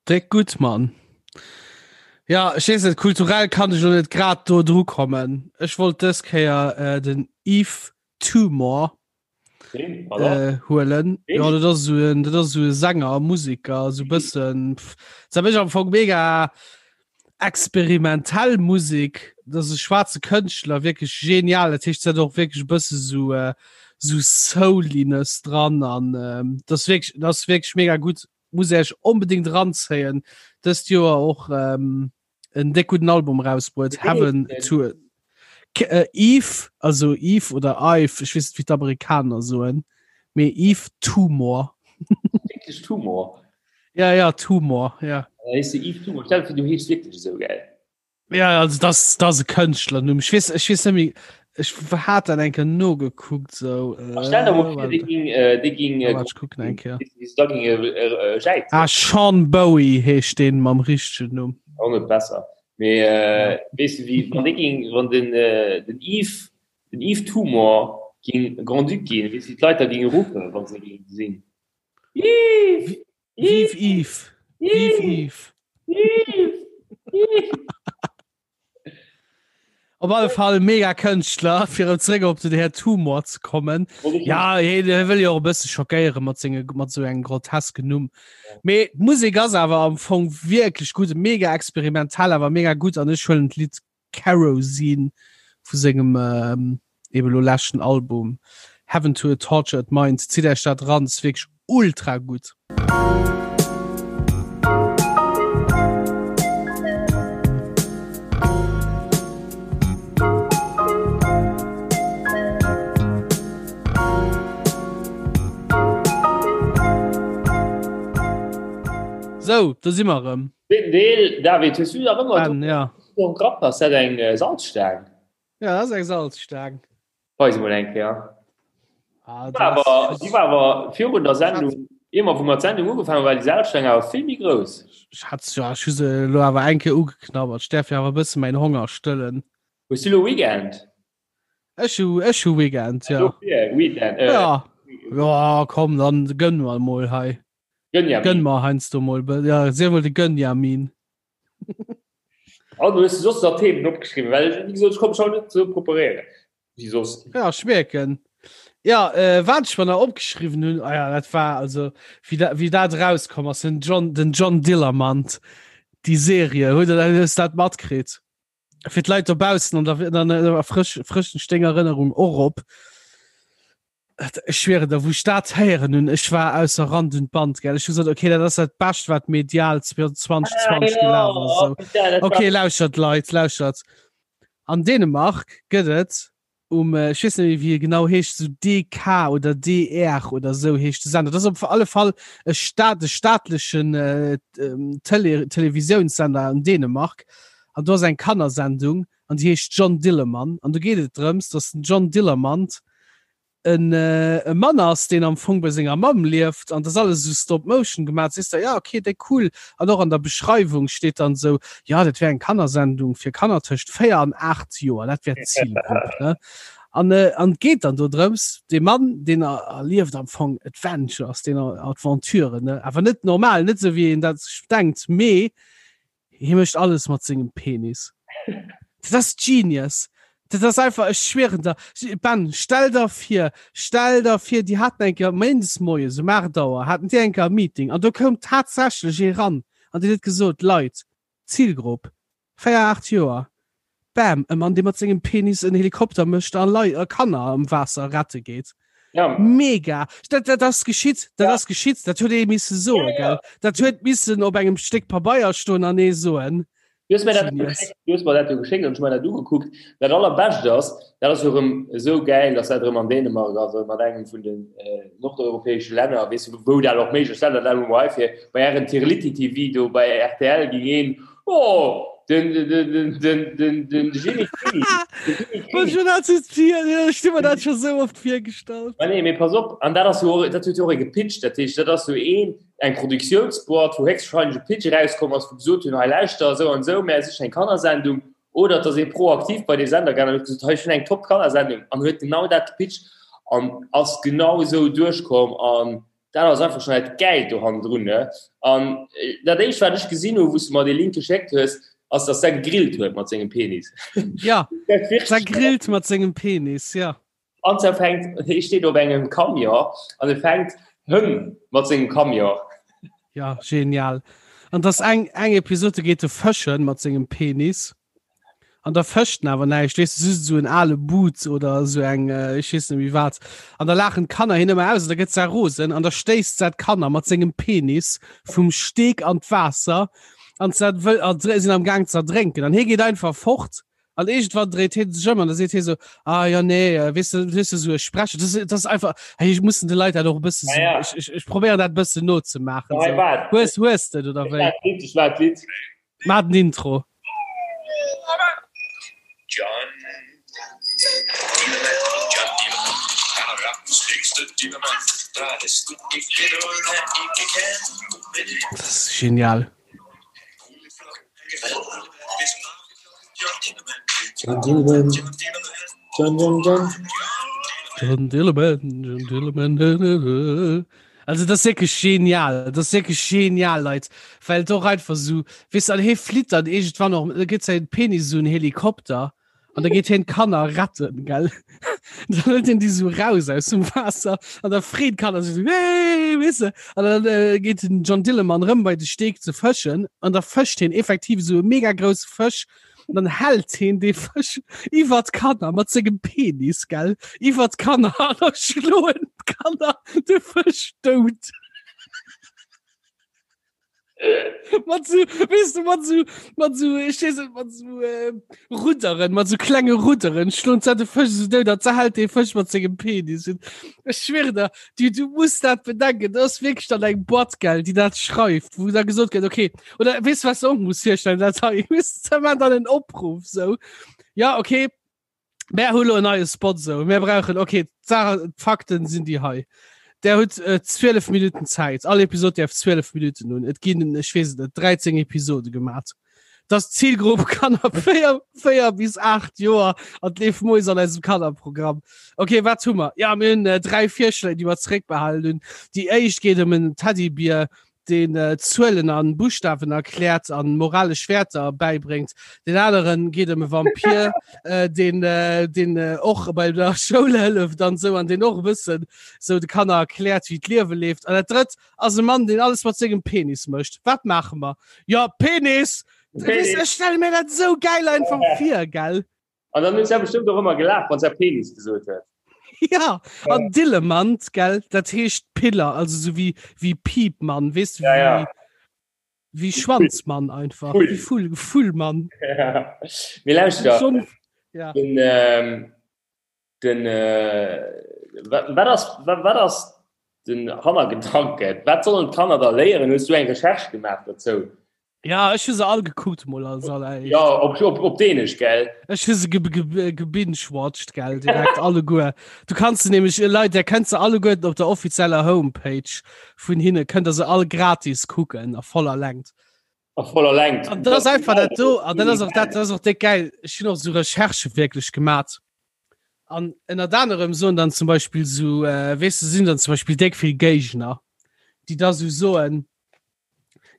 S2: Déck gutt, Mann. Ja, ech weess net, kulturell kann ech lo net grad do dru kommen. Ech wollt dës Kéier äh, den Yves Tumor äh, huelen. Ja, dat ass esou en, dat ass esou e Sänger, Musiker, esou bëssen, pff, dat mech am Fong mega experimentell Musik, dat ass e schwaarze Kënschtler, wierklech genial. Dat heescht, se hat och wierklech e bësse sou äh, sou Souliness dran an ähm, dat ass wierklech, dat ass wierklech mega gutt. Muss Iech onbedéngt eranzéien. Dëst Joer och ähm, en déck gudden Album rausbruet, Heaven to K äh, Eve, also Eve oder Ive, ech weess net wéi d'Amerikaner soen, mee Yves Tumor.
S3: Wierklech Tumor?
S2: Ja, ja, Tumor, ja.
S3: Da hees de Yves Tumor. Stell dir vir, du heeschs wierklech esou, gell?
S2: Ja, also das, das e Kënschtlernumm. Ech weess, ech weess net méi, ech hat dat eng Kéier nogekuckt, sou.
S3: Äh, Stell dir mol vir, dee ging, äh, dee ging, äh,
S2: Warte, ech kucken eng Kéier.
S3: wéi se da ging, äh, äh, jäizen.
S2: Ah, Sean Bowie heescht deen mam richtegen Numm.
S3: Auch net besser. Mee, äh, weess du, wéi, wann dee ging, wann den, äh, den Yves, den Yves Tumor ging Grand-Duc ginn, weess du, wéi d'Leit da ginge ruffen, wann se géinge gesinn?
S2: Yves! Vive Yves! Vive Yves!
S3: Yves! Yves!
S2: Op alle Fall mega Kënschtler, fir erëm zréck op den Här Tumor ze kommen. Ja, hie wëll jo och e bësse schockéiere mat senge mat sou engem grotesken Numm. Mee d'Musek ass awer am Fong wierklech gutt, mega experimentell, awer mega gutt an ech huelen d'Lidd Kerosene vu sengem. Eben elo leschten Album Heaven to a Tortured Mind, zitt Äech dat eran, ass wierklech ultra gutt. Sou, do si mer erëm.
S3: Zweeten Deel, David, hues du nach ëmmer
S2: Ben, ja.
S3: do am Grapp? Ass dat eng Salzstaang?
S2: Ja, dat ass eng Salzstaang.
S3: Weis emol eng Kéier. Ah, die war awer, die war awer virun der Sendung, immer wou mer d'Sendung ugefaangen hunn, war déi Salzstaang awer vill méi grouss.
S2: Ech hat ja, ech hu se elo awer eng Kéier ugeknabbert. Ech däerf jo awer e bësse mäin Honger stëllen.
S3: Hues du elo Weekend?
S2: Ech hu, ech hu Weekend, ja.
S3: Dofir, Weekend,
S2: äh. Ja, ja, komm, dann gönn mer emol hei.
S3: Gönjamin.
S2: Gönn mer heiansdo mol, ja, sief mol de Gönjamin.
S3: An hues du soss nach Themen opgeschriwwen? Well wéi gesot, ech konnt mech haut net esou preparéieren wéi soss.
S2: Ja, ech mierken. Ja, äh, wat ech mer nach opgeschriwwen hunn, ah ja, dat war also wéi dat, wéi dat erauskomm ass, den John, den John Dillermand, déi Serie, huet der dat, hues dat matkritt? Fir d'Leit dobaussen an der, an der frësch, frëschen Sténg Erënnerung och op. Ech schwieren der, wou ech dat héieren hunn, ech war ausser Rand und Band, gell. Ech hu gesot, okay, dat ass dat Bescht, wat medial 2020 gelaf ass. Esou. Okay, lauschert, Leit, lauschert. An Dänemark gëtt et um, ech weess net méi, wéi e genau heescht, esou DK oder DR oder esou heescht de Sender. Dat ass op alle Fall e Staat, e staatlechen Tele Televisiounssender an Dänemark. An do ass eng Kannersendung an déi heescht John Dillermand. An do geet et drëms, datt den John Dillermand en e Mann ass, deen am Fong bei senger Mamm lieft an dat ass alles esou Stop Motion gemaach. Sees der, ja okay, déi cool. An och an der Beschreiwung steet dann esou, jo dat wär eng Kannersendung fir Kanner tëscht 4 an 8 Joer, dat wär d'Zilgrupp, ne? An an et geet dann do drëms, dee Mann, deen erlieft am Fong Adventures, deen Aventuren, ne? Awer net normal, net esou wéi een dat sech denkt, mee Hie mécht alles mat sengem Penis. Dat ass genius. Dat ass einfach, ech schwieren der. Ben, stell der vir, stell der vir, déi haten eng Kéier méindes moies um 8 Auer haten déi eng Kéier e Meeting an do koum tatsächlech ee ran an deen huet gesot, Leit, Zilgrupp, 4, 8 Joer, bam, e Mann, dee mat sengem Penis en Helikopter mécht a Lei a Kanner am Waasser rette geet.
S3: Ja.
S2: Mega! Dat, dat ass geschitt, dat
S3: ja.
S2: ass geschitt, dat huet ee misse soen,
S3: ja, ja.
S2: gell? Dat huet missen op engem Stéck Pabeier stoen an ee soen.
S3: Du hues mir dat, du hues mir dat jo geschéckt an ech mir dat ugekuckt. Dat allerbescht ass, dat ass jo erëm esou gäil, dass dat erëm an Dänemark ass, mat engem vun den äh, nordeuropäesche Länner, weess du, wou dat och méiglech ass, dat dat elo hei fir bei ären Tirliti TV do bei RTL ging een, oh, den, den, den, den, den, den Jimmy Kini.
S2: Ech hu mir dat scho sou oft virgestallt.
S3: Ma nee, mee pass op, an dat ass jo och, dat huet jo och ee gepitcht, dat heescht, dat ass jo een, eng Produktiounsboîte, wou héchstwahrscheinlech e Pitch erauskomm ass, wou gesot hunn, hei lauschter, esou an esou, mär sichen eng Kannersendung, oder et ass ee proaktiv bei dee Sender gaangen an huet gesot, hei, ech hunn eng top Kannersendung, an huet genau dat gepitcht an ass genau esou duerchkomm an Dat ass einfach schon dat Gäilt do hannendrun, ne? An dat éischt wat ech gesinn hu wou s du mer dee Link geschéckt hues, ass dass säi gegrillt huet mat sengem Penis.
S2: Ja, säi grillt mat sengem Penis, ja.
S3: An se fänkt, hie steet op engem Camion an e fänkt Hënn mat sengem Camion.
S2: Ja, genial. An dass eng eng Episode geet e fëschen mat sengem Penis. An da fëscht en awer näischt, weess de, just esou en ale Boot oder esou eng, ech weess net méi wat. An da laachen d'Kanner hien ëmmer aus an da gëtt se rosen an da stéisst se d'Kanner mat sengem Penis vum Steg an d'Waasser an se wëll a sinn am Gaang ze erdrénken. An hie geet einfach fort an iergendwann dréit hie sech ëm an da seet hie sou, ah jo nee, weess de, weess de, esou e Sprecher, dat ass, dat ass einfach, hey, ech mussen de Leit dat och e bësse
S3: Ja, ja.
S2: sou, ech, ech, ech probéieren dat e bëssen nozemaachen.
S3: Hei,
S2: Sou.
S3: waart.
S2: Hues, hues de et oder
S3: Ech
S2: wéi?
S3: hat d'Lidd, ech war d'Lidd.
S2: Maach den Intro. Dat ass genial.
S3: John Dillermand, John, John, John.
S2: John Dillermand, John Dillermand. Also dat ass wierklech genial, dat ass wierklech genial, Leit, well et och einfach esou, weess de, an hie flitt dann iergendwann och, da gëtt säi Penis esou en Helikopter an da geet hien d'Kanner retten, gell. Dann hëlt hien déi esou raus aus dem Waasser an da freet d'Kanner sech esou, Hey, weess de, an dann äh, geet den John Dillermand rëm bei de Steeg ze fëschen an da fëscht hien effektiv esou e mega grousse Fësch. An dann hält heen dee Fësch iwwer d'Kanner mat sengem Penis, gell, iwwer d'Kanner an da schloen d'Kanner de Fësch dout. Mat so, weess du, mat so, mat so, ech weess net, mat so äh, Rudderen, mat so klenge Rudderen schloen se de Fësch so dout, an se hält dee Fësch mat sengem Penis. Ech schwöre der, du, du muss dat bedenken, dat ass wierklech dann eng Boîte, gell, déi dat schreift, wou da gesot gëtt, okay, oder weess du, was du och muss virstellen, dat hei, weess du, se dann en Opruff, so, ja, okay, Mär hu lo en neie Spot sou. Mär brauchen okay, d'Sache d'Fakten sinn déi hei. Der hutt äh, 12 Minuten Zäit. All Episod däerf 12 Minuten hunn. Et ginn ech weess et net 13 Episode gemat. Das Zielgrupp Kanner 4, 4 bis 8 Joer an d'leeft moies an eisem Kannerprogramm. Okay, wat hu mer? Ja, mir hunn äh, dräi Virschléi, déi mer zeréckbehalen hunn. Déi éischt geet ëm en Teddybier, deen Zuelen an Buschtawen erkläert an moralesch Wäerter bäibréngt. Deen aneren geet ëm e Vampir, deen deen och bei der Schoul hëlleft an sou an deen och e bëssen sou de Kanner erkläert, wéi d'Liewe leeft. An dat drëtt ass e Mann, deen alles mat sengem Penis mécht. Wat maache mer? Jo, Penis! Penis! Ech stelle mir dat sou gäil einfach vir, gell?
S3: An dann huet se bestimmt och ëmmer gelaacht, wann se Penis gesot huet.
S2: Ja, an Dillemann, gell, dat heescht Piller, also so wie, wie Piepmann, weess du,
S3: ja, ja.
S2: wie, wie Schwanzmann einfach, Full. wie Full, Fullmann.
S3: Ja. Mir lauschter.
S2: Schon, ja.
S3: Den, ähm, den, äh, wat, wat ass, wat, wat ass den Hannergedanke? Wat sollen d'Kanner da léieren? Hues du eng Recherche gemaach dozou?
S2: Ja, ech hu se all gekuckt mol als alleréischt.
S3: Ja, op, op, op Dänesch, gell?
S2: Ech hu se ge ge gebingewatcht, gell, direkt alleguer. Du kanns se nämlech, äh, Leit, der kënnt se alleguerten op der offizieller Homepage vun hinne, kënnt der se all gratis kucken a voller Längt.
S3: A voller Längt.
S2: An dat ass einfach dat do, an dat ass och dat, dat ass och déck geil. Ech hunn och sou Recherchë wierklech gemat. An ënnert anerem soen dann zum Beispill sou, äh, weess de, sinn dann zum Beispill déck vill Géigner, déi da sou soen,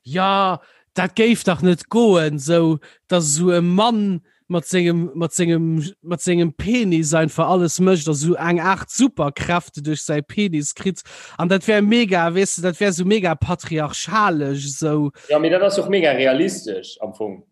S2: Ja, dat géif dach net goen, sou dass esou e Mann mat sengem mat sengem mat sengem Penis einfach alles mécht a sou eng Aart Superkräfte duerch säi Penis kritt an dat wär mega, weess de, dat wär sou mega patriarchalesch esou.
S3: Ja, mee dat ass och mega realistesch am Fong.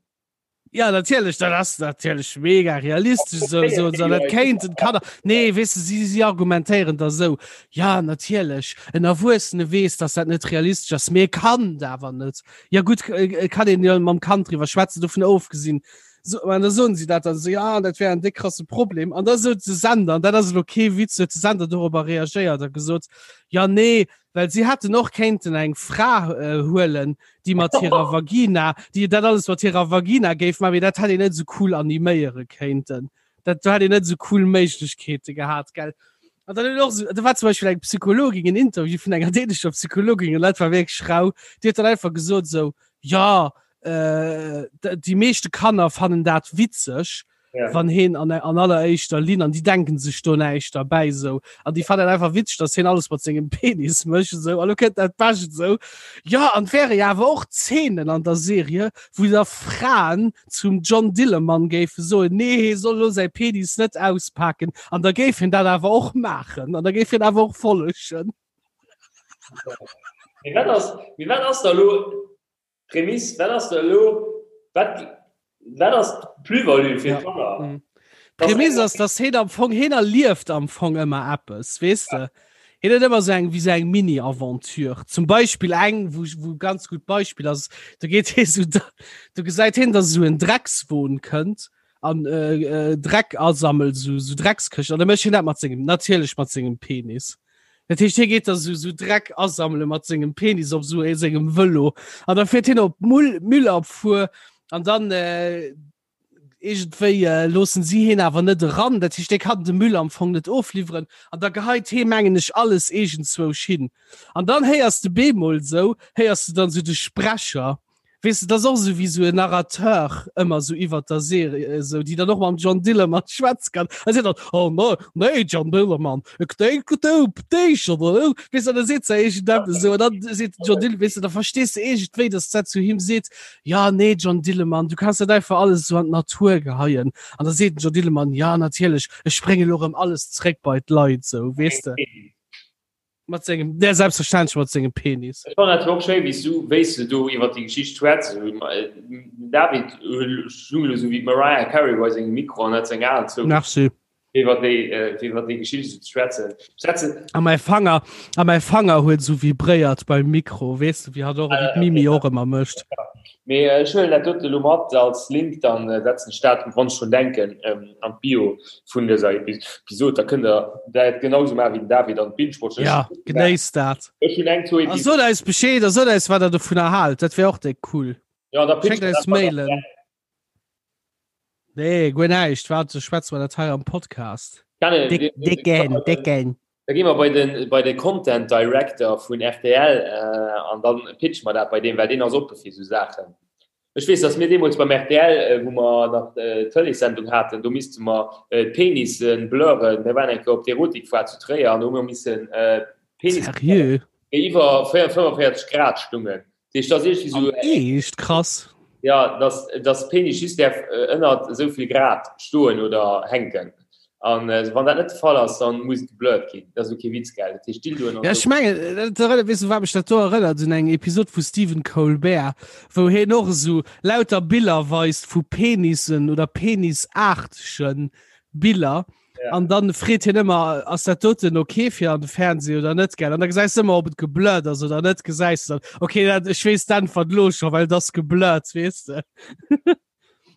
S2: Ja natierlech, dat ass natierlech mega realistesch sou, sou, sou, dat kéinten d'Kanner. Nee, weess de, si, si argumentéieren da sou, ja natierlech, en Erwuessene weess, datt dat net realistesch ass, mee e Kand awer net. Ja gutt, äh, kann een jo mam Kand driwwer schwätzen, dovun ofgesinn. So, an da soen si dat dann sou, ja, dat wär en déck krasse Problem. An da sot de Sender, an dat ass elo kee Witz, huet de Sender dorobber reagéiert a gesot, ja nee, well si hätten och kéinten eng Fra äh, huelen, déi mat hirer Vagina, déi dat alles mat hirer Vagina géif maachen, mee dat hätt een net esou cool animéiere kéinten. Dat do hätt een net esou cool Méiglechkeete gehat, gell? An dann huet och esou, do war zum Beispill eng Psychologin, en Interview vun enger dänescher Psychologin, an dat war wierklech rau, déi huet dann einfach gesot esou, jo, äh, déi meeschte Kanner fannen dat witzeg, ja. wann heen an, an alleréischter Linn an die denken sech do näischt derbäi sou an die fannen einfach witzeg, dass heen alles mat sengem Penis mécht sou an lo kënnt dat Bescht sou ja an wäre ja awer och Zeenen an der Serie wou da Fraen zum John Dillermand géife soen nee hee soll lo säi Penis net auspaken an da géif hien dat awer och maachen an da géif hien awer och follegen.
S3: Mee wat ass, mee wat ass da lo D'Prämiss, wat ass da elo, wat, wat ass d'Plus-value fir d'Kanner?
S2: Ja. Mm. D'Prämiss ass, dass heen am Fong, heen erlieft am Fong ëmmer eppes, weess de? Heen huet ëmmer sou eng, wéi sou eng Mini-Aventure. Zum Beispill eng, wou, wou ganz gutt Beispill ass, do geet hee sou, do gesäit heen, dass esou en Dreckswon kënnt an äh, äh, Dreck asammelt, sou, sou Dreckskëschten. An da mécht hien dat mat sengem, natierlech mat sengem Penis. Dat heescht, hie geet da sou, sou Dreck asammele mat sengem Penis op sou sengem Vëlo. An da fiert hien op Mull, Müllabfuhr an dann äh, iergendwéi äh, loossen si hien awer net eran. Dat heescht, dee kann de Müll am Fong net ofliwweren. An da geheit hee, mengen ech, alles iergendzwousch hin. An dann héiers de bemol sou, héiers de dann sou de Sprecher, Weess de, dat ass och esou wéi esou en Narrateur ëmmer esou iwwert der Serie esou, déi dann och mam John Dillermand schwätze kann. A seet dann, oh no, nee John Dillermand, ik denk du dich oder esou. Weess de, an da seet se iergendeppes esou an dann seet den John Dillermand, weess de, da verstees de iergendwéi, dass dat zu him seet, ja nee John Dillermand, du kanns net einfach alles esou an d'Natur geheien. An da seet den John Dillermand, ja natierlech, ech brénge lo erëm alles zréck bei d'Leit, esou, weess de. Mat sengem, der selbstverständlech mat sengem Penis.
S3: Ech fannen dat och schéi wéi s du, wéi s de do iwwer déi Geschicht schwätz. David stung elo sou wéi d'Mariah Carey bei sengem Mikro an hat seng Aen zou.
S2: Merci.
S3: Iwwer déi, iwwer déi Geschicht sou ze schwätzen.
S2: Schwätzen. A mäi Fanger, a mäi Fanger huet sou vibréiert beim Mikro, weess de, wéi hatt och, wéi d'Mimi och ëmmer mécht.
S3: Mee ech huelen dat dote lo mat als Link, dann setzen ech dat, wann ech drun denken, an d'Bio vun dëser Episod. Da kënnt der dat genau sou maachen wéi den David an binge-watchen.
S2: Ja, genéisst dat.
S3: Ech hunn eng, zwou
S2: A sot eis Bescheed a sot eis, wat der dovunner haalt. Dat wär och déck cool.
S3: Ja, da
S2: pitcht Schéckt eis Mailen. Nee, guer näischt. Wat, schwätze mer dat hei am Podcast.
S3: Déck,
S2: décken, décken.
S3: Da gi mer bei den, bei de Content Director vun rtl an dann pitche mer dat bei deem, well deen ass oppe fir esou Saachen. Ech weess, datt mir deemools beim rtl, wou mer nach d'Tëleessendung haten, do misste mer d'Penisse blurren. Mir waren eng Kéier op d'Erotikfoire zu Tréier an do hu mer missen
S2: Penisse blurren,
S3: déi iwwer 45 Grad stungen. Dat heescht, dat ass iergendwéi
S2: esou. Echt? Krass.
S3: Ja, dass, dass Penis just däerf ënnert esou vill Grad stoen oder hänken. An wann dat net de Fall ass, dann muss et geblurrt ginn. Dat ass elo kee Witz, gell? Dat heescht
S2: Dildoen an Ja, ech mengen, dat erënnert, weess du, wat mech dat do erënnert? Un eng Episod vu Stephen Colbert, wou hien och esou lauter Biller weist vu Penissen oder penisaartegen Biller. An dann freet hien ëmmer, ass dat doten ok fir an de Fernseh oder net, gell? An da gesäis de ëmmer, ob et geblurrt ass oder net, gesäis de dann, ok, dat, ech weess d'Äntwert elo scho, well et ass geblurrt, weess de.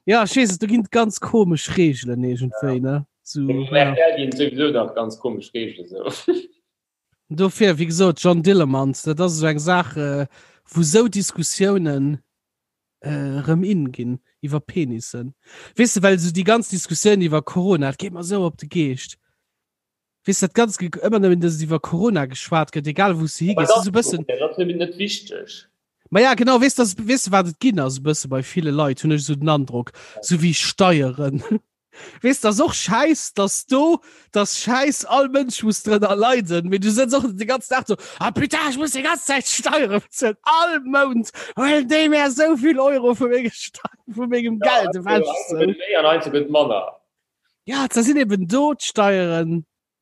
S2: Ja, ech weess et, do ginn et ganz komesch Reegelen iergendwéi, ne?
S3: So, ja. RTL ginn et souwisou nach ganz komesch Reegelen,
S2: sou. Dofir, wéi gesot, John Dillermand, dat ass esou eng Saach, wou sou Diskussiounen erëm in ginn iwwer Penissen. Weess de, well esou déi ganz Diskussioun iwwer Corona, dat geet mer esou op de Geescht. Weess dat ganz ëmmer nëmmen, dass iwwer Corona geschwat gëtt, egal wou s de higees.
S3: Dat ass e bëssen. Dat ass nëmmen net wichteg.
S2: Ma ja, genau, weess de, weess de wat et ginn ass e bësse bei ville Leit, hunn ech esou den Androck, esou wéi Steieren. Weess de, ass och schäiss, dass do, dass schäiss, all Mënsch muss drënner leiden, mee du sëtz och de ganzen Dag do, ah putain, ech muss déi ganz Zäit Steiere bezuelen, all Mount huelen déi mär esou vill Euro vu menge Steieren, vu mengem Geld
S3: ewech. Ja, gëtt méi an heiansdo gëtt manner.
S2: Ja, da sinn eben do d'Steieren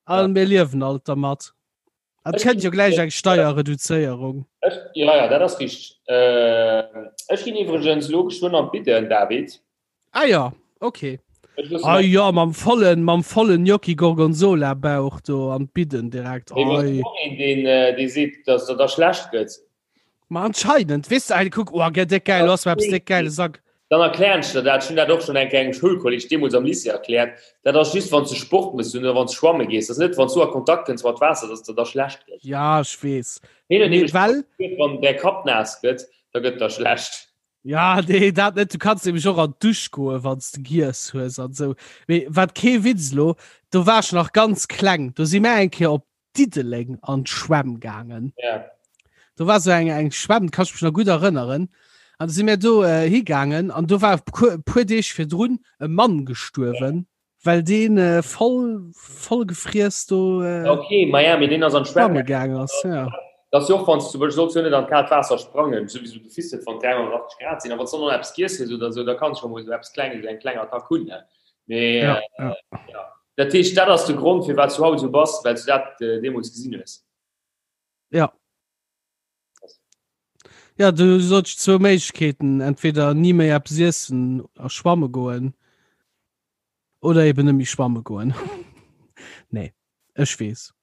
S2: a mir liewen alt dermat. Et kënnt jo gläich eng Steierreduzéierung.
S3: Ech, ja, ja, dat ass richteg. Ech ginn iwwregens elo geschwënn an d'Bidden, David.
S2: Ah ja, okay. Ah ja, mam vollen, mam vollen Gnocchi Gorgonzola Bauch do an d'Bidden direkt.
S3: Oi. Een, deen, äh, dee seet, dass der da schlecht gëtt.
S2: Ma anscheinend, weess de, kuck, oh, gell, déck geil, ass eppes déck geile Sack.
S3: Dann erklären ech der dat. Ech hunn dat och schonn eng Kéier engem Schoulkolleg deemools am Lycée erkläert. Dat ass just, wann s de Sport méchs oder wann s de schwamme gees. Dat ass net, wann s du a Kontakt kënns mat Waasser, dass der da schlecht
S2: gëtt. Ja, ech weess.
S3: Hien huet nämlech gesot, wann däi Kapp naass gëtt, da gëtt der schlecht.
S2: Ja, nee, dat net. Du kanns nämlech och an d'Dusch goen, wann s de giess hues an esou. Mee wat kee Witz elo, do war ech nach ganz kleng, do si mär eng Kéier op Diddeleng an d'Schwämm gaangen.
S3: Ja.
S2: Do war sou eng, eng Schwämm, kann ech mech nach gutt erënneren. An do si mär do äh, higaangen an do war e puer Deeg virdrun e Mann gestuerwen. Ja. Well deen äh, voll, voll gefriess do
S3: äh, Okay, ma ja, mee deen ass an
S2: d'Schwämm gaangen ass. Ja.
S3: Dat ass jo och, wann s du zum Beispill solls jo net an d'kaalt Waasser sprangen, souwisou du fist net, wann 380 Grad sinn, a wann s du dann nach eppes giess hues oder sou, da kanns du scho mol sou eppes Klenges, eng kleng Attack hunn, ne? Mee
S2: ja, ja.
S3: ja. Dat heescht, dat ass de Grond, firwat s du haut esou bass, well s du dat äh, deemools gesinn hues.
S2: Ja. Ja, du sollst zwou Méiglechkeeten, entweder ni méi eppes iessen a schwamme goen oder eben net méi schwamme goen. Nee, ech weess.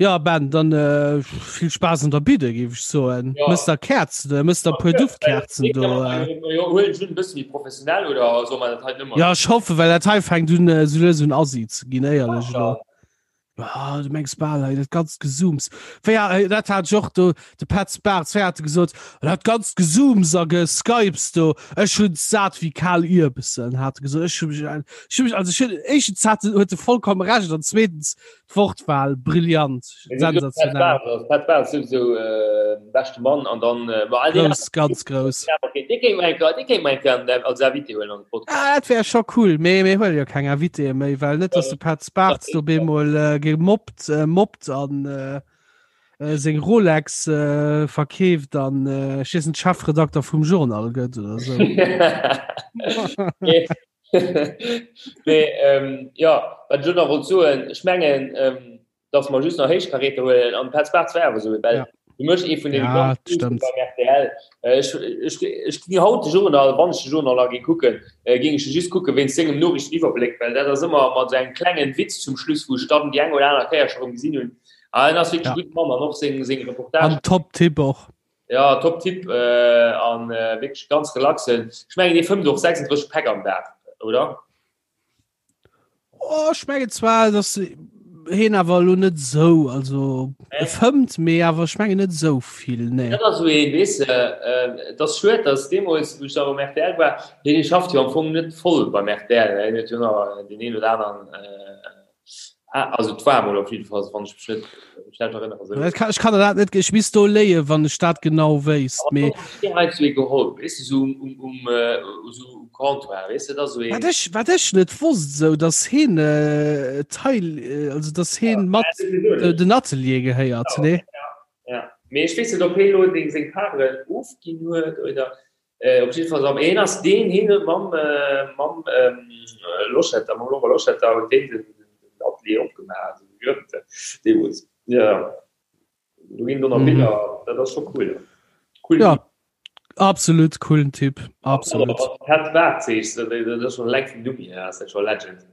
S2: Ja Ben, dann äh, vill Spaass an der Bidde géif ech soen. Ja. Mëss der Kerzen, äh, mëss der puer Duftkerzen do.
S3: Äh. Huelen ech un, e bësse méi professionell oder soll man dat hei
S2: nëmmer? Ja, ech hoffe, well dat hei fänkt un äh, sou lues un assi ze ginn, éierlech elo. Ah, du mengs bal hei dat ganzt Gesooms. Wéi ha- dat hat ech och do, de Petz Bartz, wéi hat e gesot, dat ganzt Gesooms a Geskypes do, ech hunn sat wéi kal Ierbessen, hat e gesot. Ech hu mech, ech hu mech, also ech hunn, éischtens hat en, huet e vollkommen Recht an zweetens d'Wortwahl brillant, sensationell.
S3: Petz Bartz souwisou äh, beschte Mann an dann
S2: äh, ma all déi Grouss, ganz grouss.
S3: Okay, dee kéint mer eng Kéier, dee kéint mer eng Kéier als Invité huelen an de
S2: Podcast. Ah, dat wär scho cool, mee mir huele jo keng Invitéë méi, well net, dass de Petz Bartz do bemol äh, gemobbt, äh, mobbt an äh, äh, seng Rolex äh, verkeeft an äh, ech weess net, Chefredakter vum Journal gëtt oder sou.
S3: Mee ähm, ja, wat ech elo nach wollt soen, ech mengen, ähm,. Dass mer just nach Héichkaräter huelen an Petz Bartz war awer esou, well du méchs ee vun deene ganz groussen beim rtl. Ech, ech, ech ginn haut de Journal, wann ech de Journal nach géing kucken, géing ech e just kucke wéinst sengem Noriichteniwwerbléck, well dat ass ëmmer mat esou engem klengen Witz zum Schluss, wou ech dann déi eng oder aner Kéier scho rëm gesinn hunn. A en ass wierklech e gudde Mann an och seng, seng Reportagen.
S2: An top Typ och.
S3: Ja, top Typ an wierklech ganz relaxen. Ech mengen, dee fëmmt och 36 Päck am Dag, oder?
S2: Oh, ech mengen zwar, dass heen awer elo net esou, also e fëmmt, mee awer ech mengen net esou vill, nee.
S3: Dat ass esou een, weess de, et ass schued, dass deemools, wou ech nach um rtl war, hien schafft jo am Fong net voll beim rtl, hien huet jo nach deen een oder aneren, also et war emol op jidde Fall, wann ech mech net schlecht erënnere,
S2: esou. Ech kann der dat net, ech misst do léien, wann ech dat genau wéisst,
S3: mee. Hien huet esou ee geholl, weess de, esou um, um, esou um Comptoir, weess de, dat ass esou een.
S2: Wat ech, wat ech net wosst, esou, datt hien Teil, also datt hien mat den Atelier gehéiert, nee?
S3: Ja, mee ech weess net, ob hien elo deng seng Paren ofginn huet oder. Op jidde Fall am een ass deen hien huet mam mam Loschetter, mam Laurent Loschetter huet deen den den Atelier opgemaach, also gegrënnt deemools. Ja do ginn do nach Biller, dat ass scho cool.
S2: Cool. Ja absolut coolen Typ, absolut.
S3: Pat Bartz, dat ass schon eleng vum Numm hier ass dat scho Legend.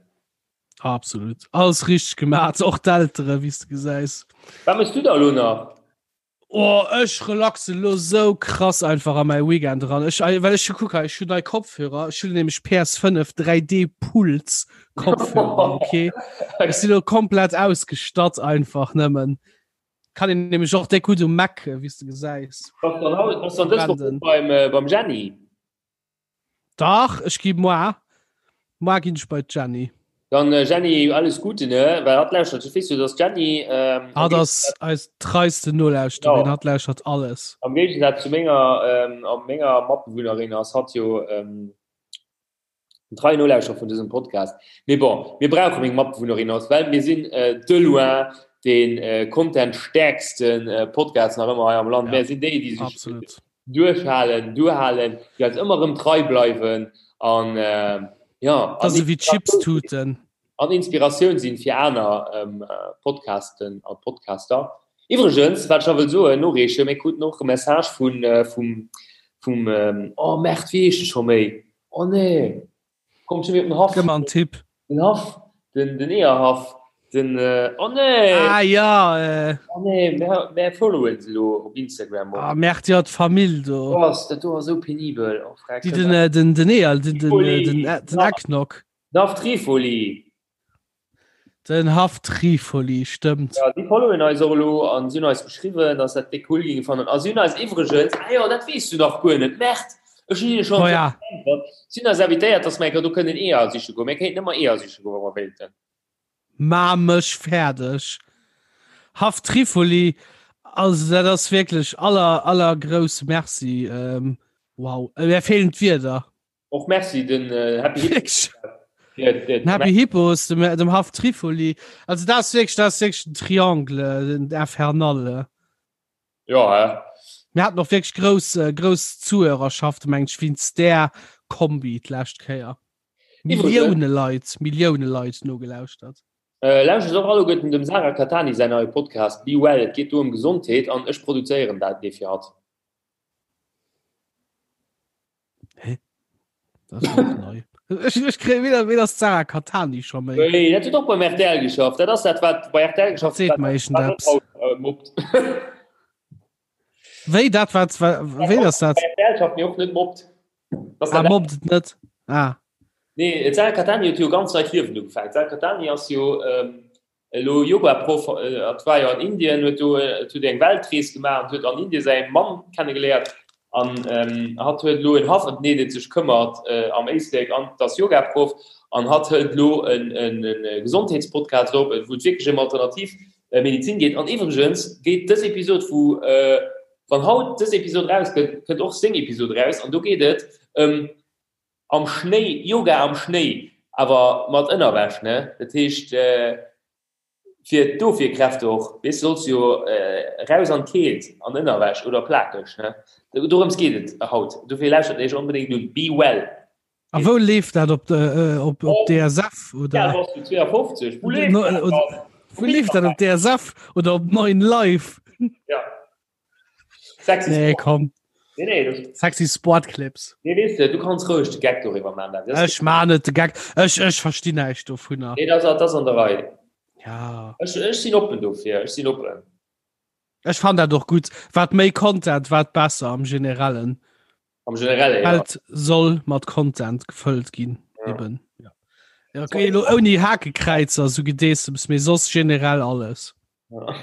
S2: Absolut. Alles richteg gemaach, och d'Eltere wéi s de gesäis.
S3: Wat méchs du da elo nach?
S2: Oh ech relaxen lo sou krass einfach a mäi Weekend eran. Ech well ech kuck hei, ech hunn nei Kopfhörer, ech hunn nämlech PS5 3D Puls Kopfhörer, okay. Ech sinn lo komplett ausgestatt einfach nëmmen. Kann een nämlech och déck gutt um Mac, wéi s de gesäis.
S3: Bass dann haut, bass dann dës Woch beim beim Jenny?
S2: Dach, ech gi moar. Moar ginn ech bei d'Jenny.
S3: Dann Jenny, alles Gute, ne? Well hatt lauschtert, ech weess jo, dass d'Jenny.
S2: Ähm, hatt ass eis treiste Nolauschterin, ja. Hatt lauschtert alles.
S3: Am Géigesaz zu menger, ähm, a menger Matbewunnerin ass hatt jo ähm, en treien Nolauschterer vun dësem Podcast. Mee bon, mir brauche meng Matbewunnerin ass, well mir sinn äh, de loin den äh, Content-stäerksten äh, Podcast nach ëmmer hei am Land. Ja, mir sinn déi, déi sech
S2: absolut.
S3: Duerchhalen, duerhalen, déi eis ëmmer erëm trei bleiwen an jo,
S2: Dat ass ewéi Chipstuten.
S3: An Inspiratioun sinn fir aner Podcasten a Podcaster. Iwwregens, wat ech nach wëll soen, noreechen, mir kruten och e Message vun, vum, vum, oh Merde, wéi heescht e scho méi? Oh nee! Kommt schon den
S2: Haff. Gëmm mer en Tipp.
S3: Den Haff, den, den Eeërhaff, den, äh, oh nee!
S2: Ah ja, äh.
S3: Oh nee, mär, mär followen se lo op Instagram
S2: och. Ah Merde, ja, d'Famill do.
S3: Oh, ass dat do ass sou penibel.
S2: Oh, freck. Déi den, äh, den, den Eeër, den, den, äh, den, äh, den Eggnog.
S3: Den Haff Trifoli.
S2: Den Haff Trifoli, stëmmt.
S3: Ja, déi followen eis och elo an si hunn eis geschriwwen, dass dat déck cool géinge fannen. A si hunn eis iwwregens, ah jo, dat weess du nach guer net, Merde, ech hunn hinne schonn
S2: Oh ja.
S3: geäntwert, si hunn eis invitéiert, dass mer eng Kéier do kënnen Eeër siche goen. Mir kéinten ëmmer Eeër siche goen, wa mer wéilten.
S2: Ma mech fäerdeg. Haff Trifoli, also dat ass wierklech aller, aller grousse Merci. Wow, mir feelen d'Wierder.
S3: Och merci den äh, Happy
S2: Hippos. Den Happy Hippos, dem, dem Haff Trifoli. Also das ist wirklich, das ist wirklich ein Triangle, den Infernal.
S3: Ja, ja.
S2: Mir hatten och wirklich grouss, äh, grouss Zuhörerschaft, meng ich, wéinst där Kombi d'lescht Kéier. Millioune Leit, Millioune Leit nogelauschtert.
S3: Äh, lauschtert och alleguerten dem Sarah Cattani säin neie Podcast Be Well. Et geet do ëm Gesondheet an ech produzéieren dat dee fir hatt.
S2: Hä? Das ist auch neu. Ech, ech kréie weder, weder ass d'Sarah Cattani scho méi.
S3: Nee, dat huet och beim RTL geschafft. Dat ass dat, wat bei RTL geschafft
S2: Seet mer echen
S3: wat
S2: eppes.
S3: haut, äh, mobbt.
S2: Wéi dat wat, wa- wéi ass dat?
S3: Bei RTL schafft, mee och net mobbt.
S2: Das Ah, mobbt et net. Ah.
S3: Nee, d'Sarah Cattani huet jo ganz neit Liewen ugefaangen. D'Sarah Cattani ass jo ähm, elo Yoga-Proff, hat war jo an Indien, huet do huet eng Weltrees gemaach an huet an Indien säi Mann kennegeléiert an hatt huet elo en Haff ëm deen et sech këmmert am Éislek an ass Yoga-Proff an hatt hëlt elo e Gesondheetspodcast op, wou et wierklech ëm alternativ Medizin geet. An iwwregens geet dës Episod vu wann haut dës Episod erauskënnt, kënnt och seng Episod eraus an do geet et ëm Am Schnéi, Yoga am Schnéi, awer mat Ënnerwäsch, ne? Dat heescht fir d'Ofwierkräfte och, weess, du solls jo raus an d'Keelt an Ënnerwäsch oder plakeg, ne? Dorëms geet et haut, dofir lauschtert iech onbedéngt un, Be Well.
S2: A wou leeft dat? Op op DSF
S3: oder? Wéi al bass du? 52? Wou leeft dat dann?
S2: Wou leeft dat op DSF oder op 9 Live?
S3: Ja.
S2: Sexy nee, komm. Nee, nee, das... Sexy Sportclips.
S3: Nee, weißt du, du kannst ruhig de Gag darüber machen.
S2: Das ich mach net de Gag. Ech, ech versti näischt dovunner.
S3: Nee, das, das an der Rei.
S2: Ja.
S3: Ech, ech sinn oppen dofir. Ech sinn oppen.
S2: Ech fand dat och gut. Wat méi Content, wat besser am Generellen.
S3: Am Generelle,
S2: ja. Welt soll mat Content gefëllt ginn. Ja. Eben. Ja. Ja, okay, lo ouni Hakekräizer, so Gedeessems, mee soss generell alles.
S3: Ja.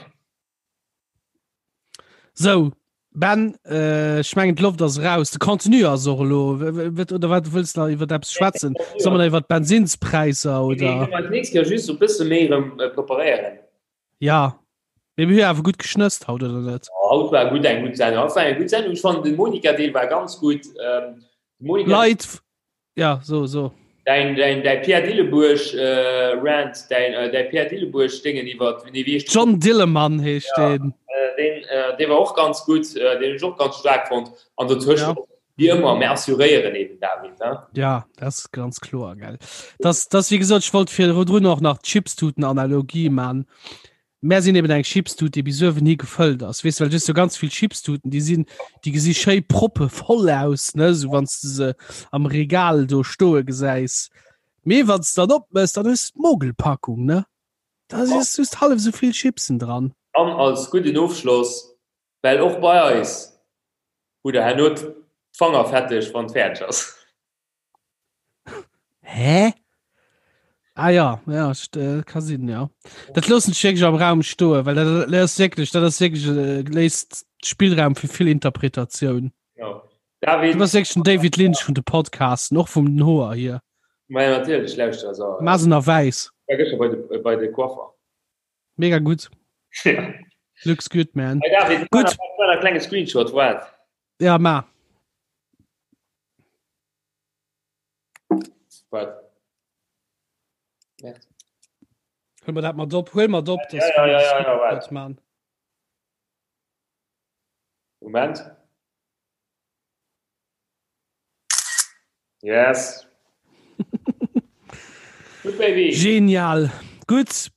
S2: So, Ben, äh, ech mengen d'Loft ass raus. De Contenu ass och elo. Oder wat wëlls du nach iwwer eppes schwätzen? Soll man iwwer d'Bensinspräisser oder?
S3: Nee, nächst Kéier just e bësse méi erëm äh, preparéieren.
S2: Ja. Mee mir hu awer gutt geschnësst haut, oder net?
S3: Ja, haut war gutt eng gutt Sendung. Haut war eng gutt Sendung. Ech fannen den Monika-Deel war ganz gutt. Ähm,
S2: Monika Leit, ja, so, so.
S3: Däin, däin, däi Pierre Dillebuerg äh, Rant, däin, äh, däi Pierre Dillebuerg Déngen iwwer, nee,
S2: wéi heescht John Dillemann heescht
S3: ja, deen. Äh, deen, äh, dee war och ganz gutt, äh, deen hunn ech och ganz staark fonnt. An dotëscht
S2: ja.
S3: Wie ëmmer, mir assuréieren eben, David. He?
S2: Ja, dat ass ganz kloer, gell. Das, das, wie gesot, ech wollt virdrun och nach d'Chipstuten-Analogie man. Mär sinn eben eng Chipstut, déi bis uewen hi gefëllt ass. Weess, well du hues jo ganz vill Chipstuten, déi sinn, déi gesi schéi proppevoll aus, ne, sou wann s de se am Regal do stoe gesäis. Mee wann s de dann opmëss, dann hues de d'Mogelpackung, ne? Da si just hallef esou vill Chipsen dran.
S3: An als gudden Ofschloss, well och bei eis hutt der herno d'Fanger fetteg, wann et fäerdeg ass.
S2: Hä? Ah ja, ja, äh, ka sinn, ja. Dat loossen ech wierklech am Raum stoen, well dat, dat ass wierklech, dat ass wierklech, äh, léisst Spillraum fir vill Interpretatioun.
S3: Ja. David,
S2: Du bass wierklech den David Lynch vun de Podcasten, och vum den Hoer hier.
S3: Ma ja, natierlech, lauschter, also,
S2: Maas en a wäiss.
S3: war gëschter bei de, bei de Coiffer.
S2: Mega gutt.
S3: Ja.
S2: Looks good, man.
S3: Hey David,
S2: Gutt.
S3: War e klenge Screenshot, waart.
S2: Ja, ma.
S3: Wat? Merde.
S2: Huel mer dat mat op, huel mat op,
S3: Ja, ja, ja, ja, ja, waart.
S2: man.
S3: Moment. Yes. Good baby.
S2: Genial. Gutt,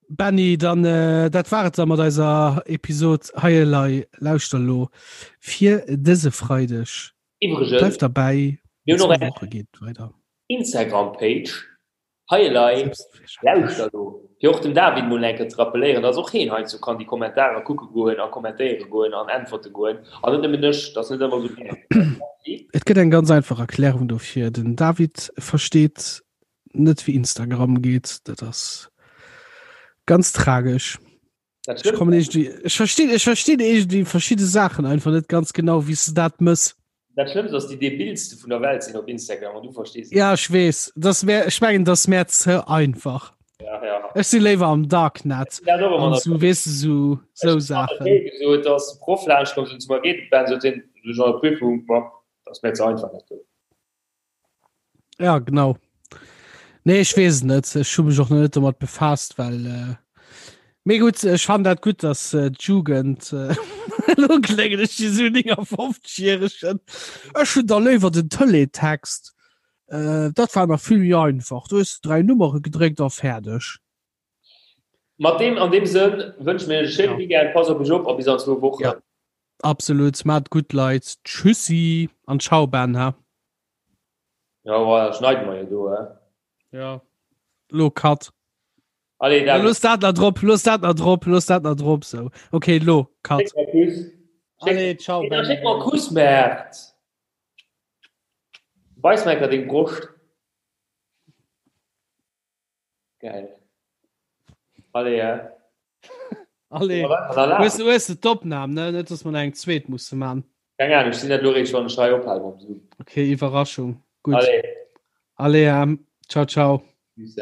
S2: Benny, dann äh, dat war et da mat eiser Episod Hei elei lauschter lo fir dëse Freideg.
S3: Iwwregens,
S2: Bleift derbäi,
S3: mir hunn och
S2: zwou
S3: eng
S2: Woche geet weider.
S3: Instagram-Page, Hei elei lauschter lo, fir och dem David mol eng Kéier ze rappelléieren, dass och heen heiansdo kann déi Kommentarer kucke goen a kommentéiere goen an äntwerte goen an net nëmmen ech, dat ass net ëmmer esou gär.
S2: Et gëtt eng ganz einfach Erklärung dofir, Den David versteet net wéi Instagram geet, dat ass ganz tragesch.
S3: Dat
S2: Ech
S3: stimmt.
S2: kommen irgendwie, ech verstinn, ech verstinn irgendwie verschidde Saachen einfach net ganz genau, wéi s de dat mëss.
S3: Dat Schlëmmst ass, déi debilste vun der Welt sinn op Instagram an du verstees et.
S2: Ja, ech weess, das wär, ech mengen, das wär ze einfach.
S3: Ja, ja.
S2: Ech si léiwer am Darknet
S3: Dat och ëmmer
S2: an
S3: nach.
S2: so, weess de, so, so Saachen.
S3: Gesot, dass de Proff laanscht koum, sot zu mer, Geet et, Ben? Sot hien, du schon an der Prüfung, ma, dat ass mir ze einfach, dat do.
S2: Ja genau. Nee ech weess net, ech hu mech och net domat befaasst, well äh, mee gutt, ech fan dat gutt, dass äh, d'Jugend äh, lo kléngen ech wéi sou 59-Jähregen. Ech hunn da léiwer den Teletext. Äh, dat war nach vill méi einfach. Du hues 3 Nummere gedréckt a fäerdeg.
S3: Mat deem an deem Sënn wënsche mir iech e schéine
S2: Ja.
S3: Weekend, passt op iech op a bis an zwou Wochen.
S2: Ja. Absolut, maat gutt Leit. Tschüssi an ciao Ben ha.
S3: Ja, voilà, schneiden wir jo do, hä?
S2: Ja. Lo Cut.
S3: Allez,
S2: Ja,
S3: David.
S2: looss dat nach drop, looss dat nach drop, looss dat nach drop sou. Okay, lo Cut.
S3: Schéck mer Kuss. Schéck,
S2: Allez, ciao
S3: nee,
S2: Ben.
S3: schéck mer Kuss, Mert. Weis mer enker deng Broscht. Geil. Allez, ja.
S2: Allez. Hues du hues du d'Opnam, ne? Net, dass mer nach eng zweet musse man.
S3: Keng Ahnung, ech sinn dat lo réischt, wann ech hei ophale mam Zoom.
S2: Okay, Iwwerraschung. Gutt.
S3: Allez.
S2: Allez, ähm, ciao, ciao.
S3: Tschüss.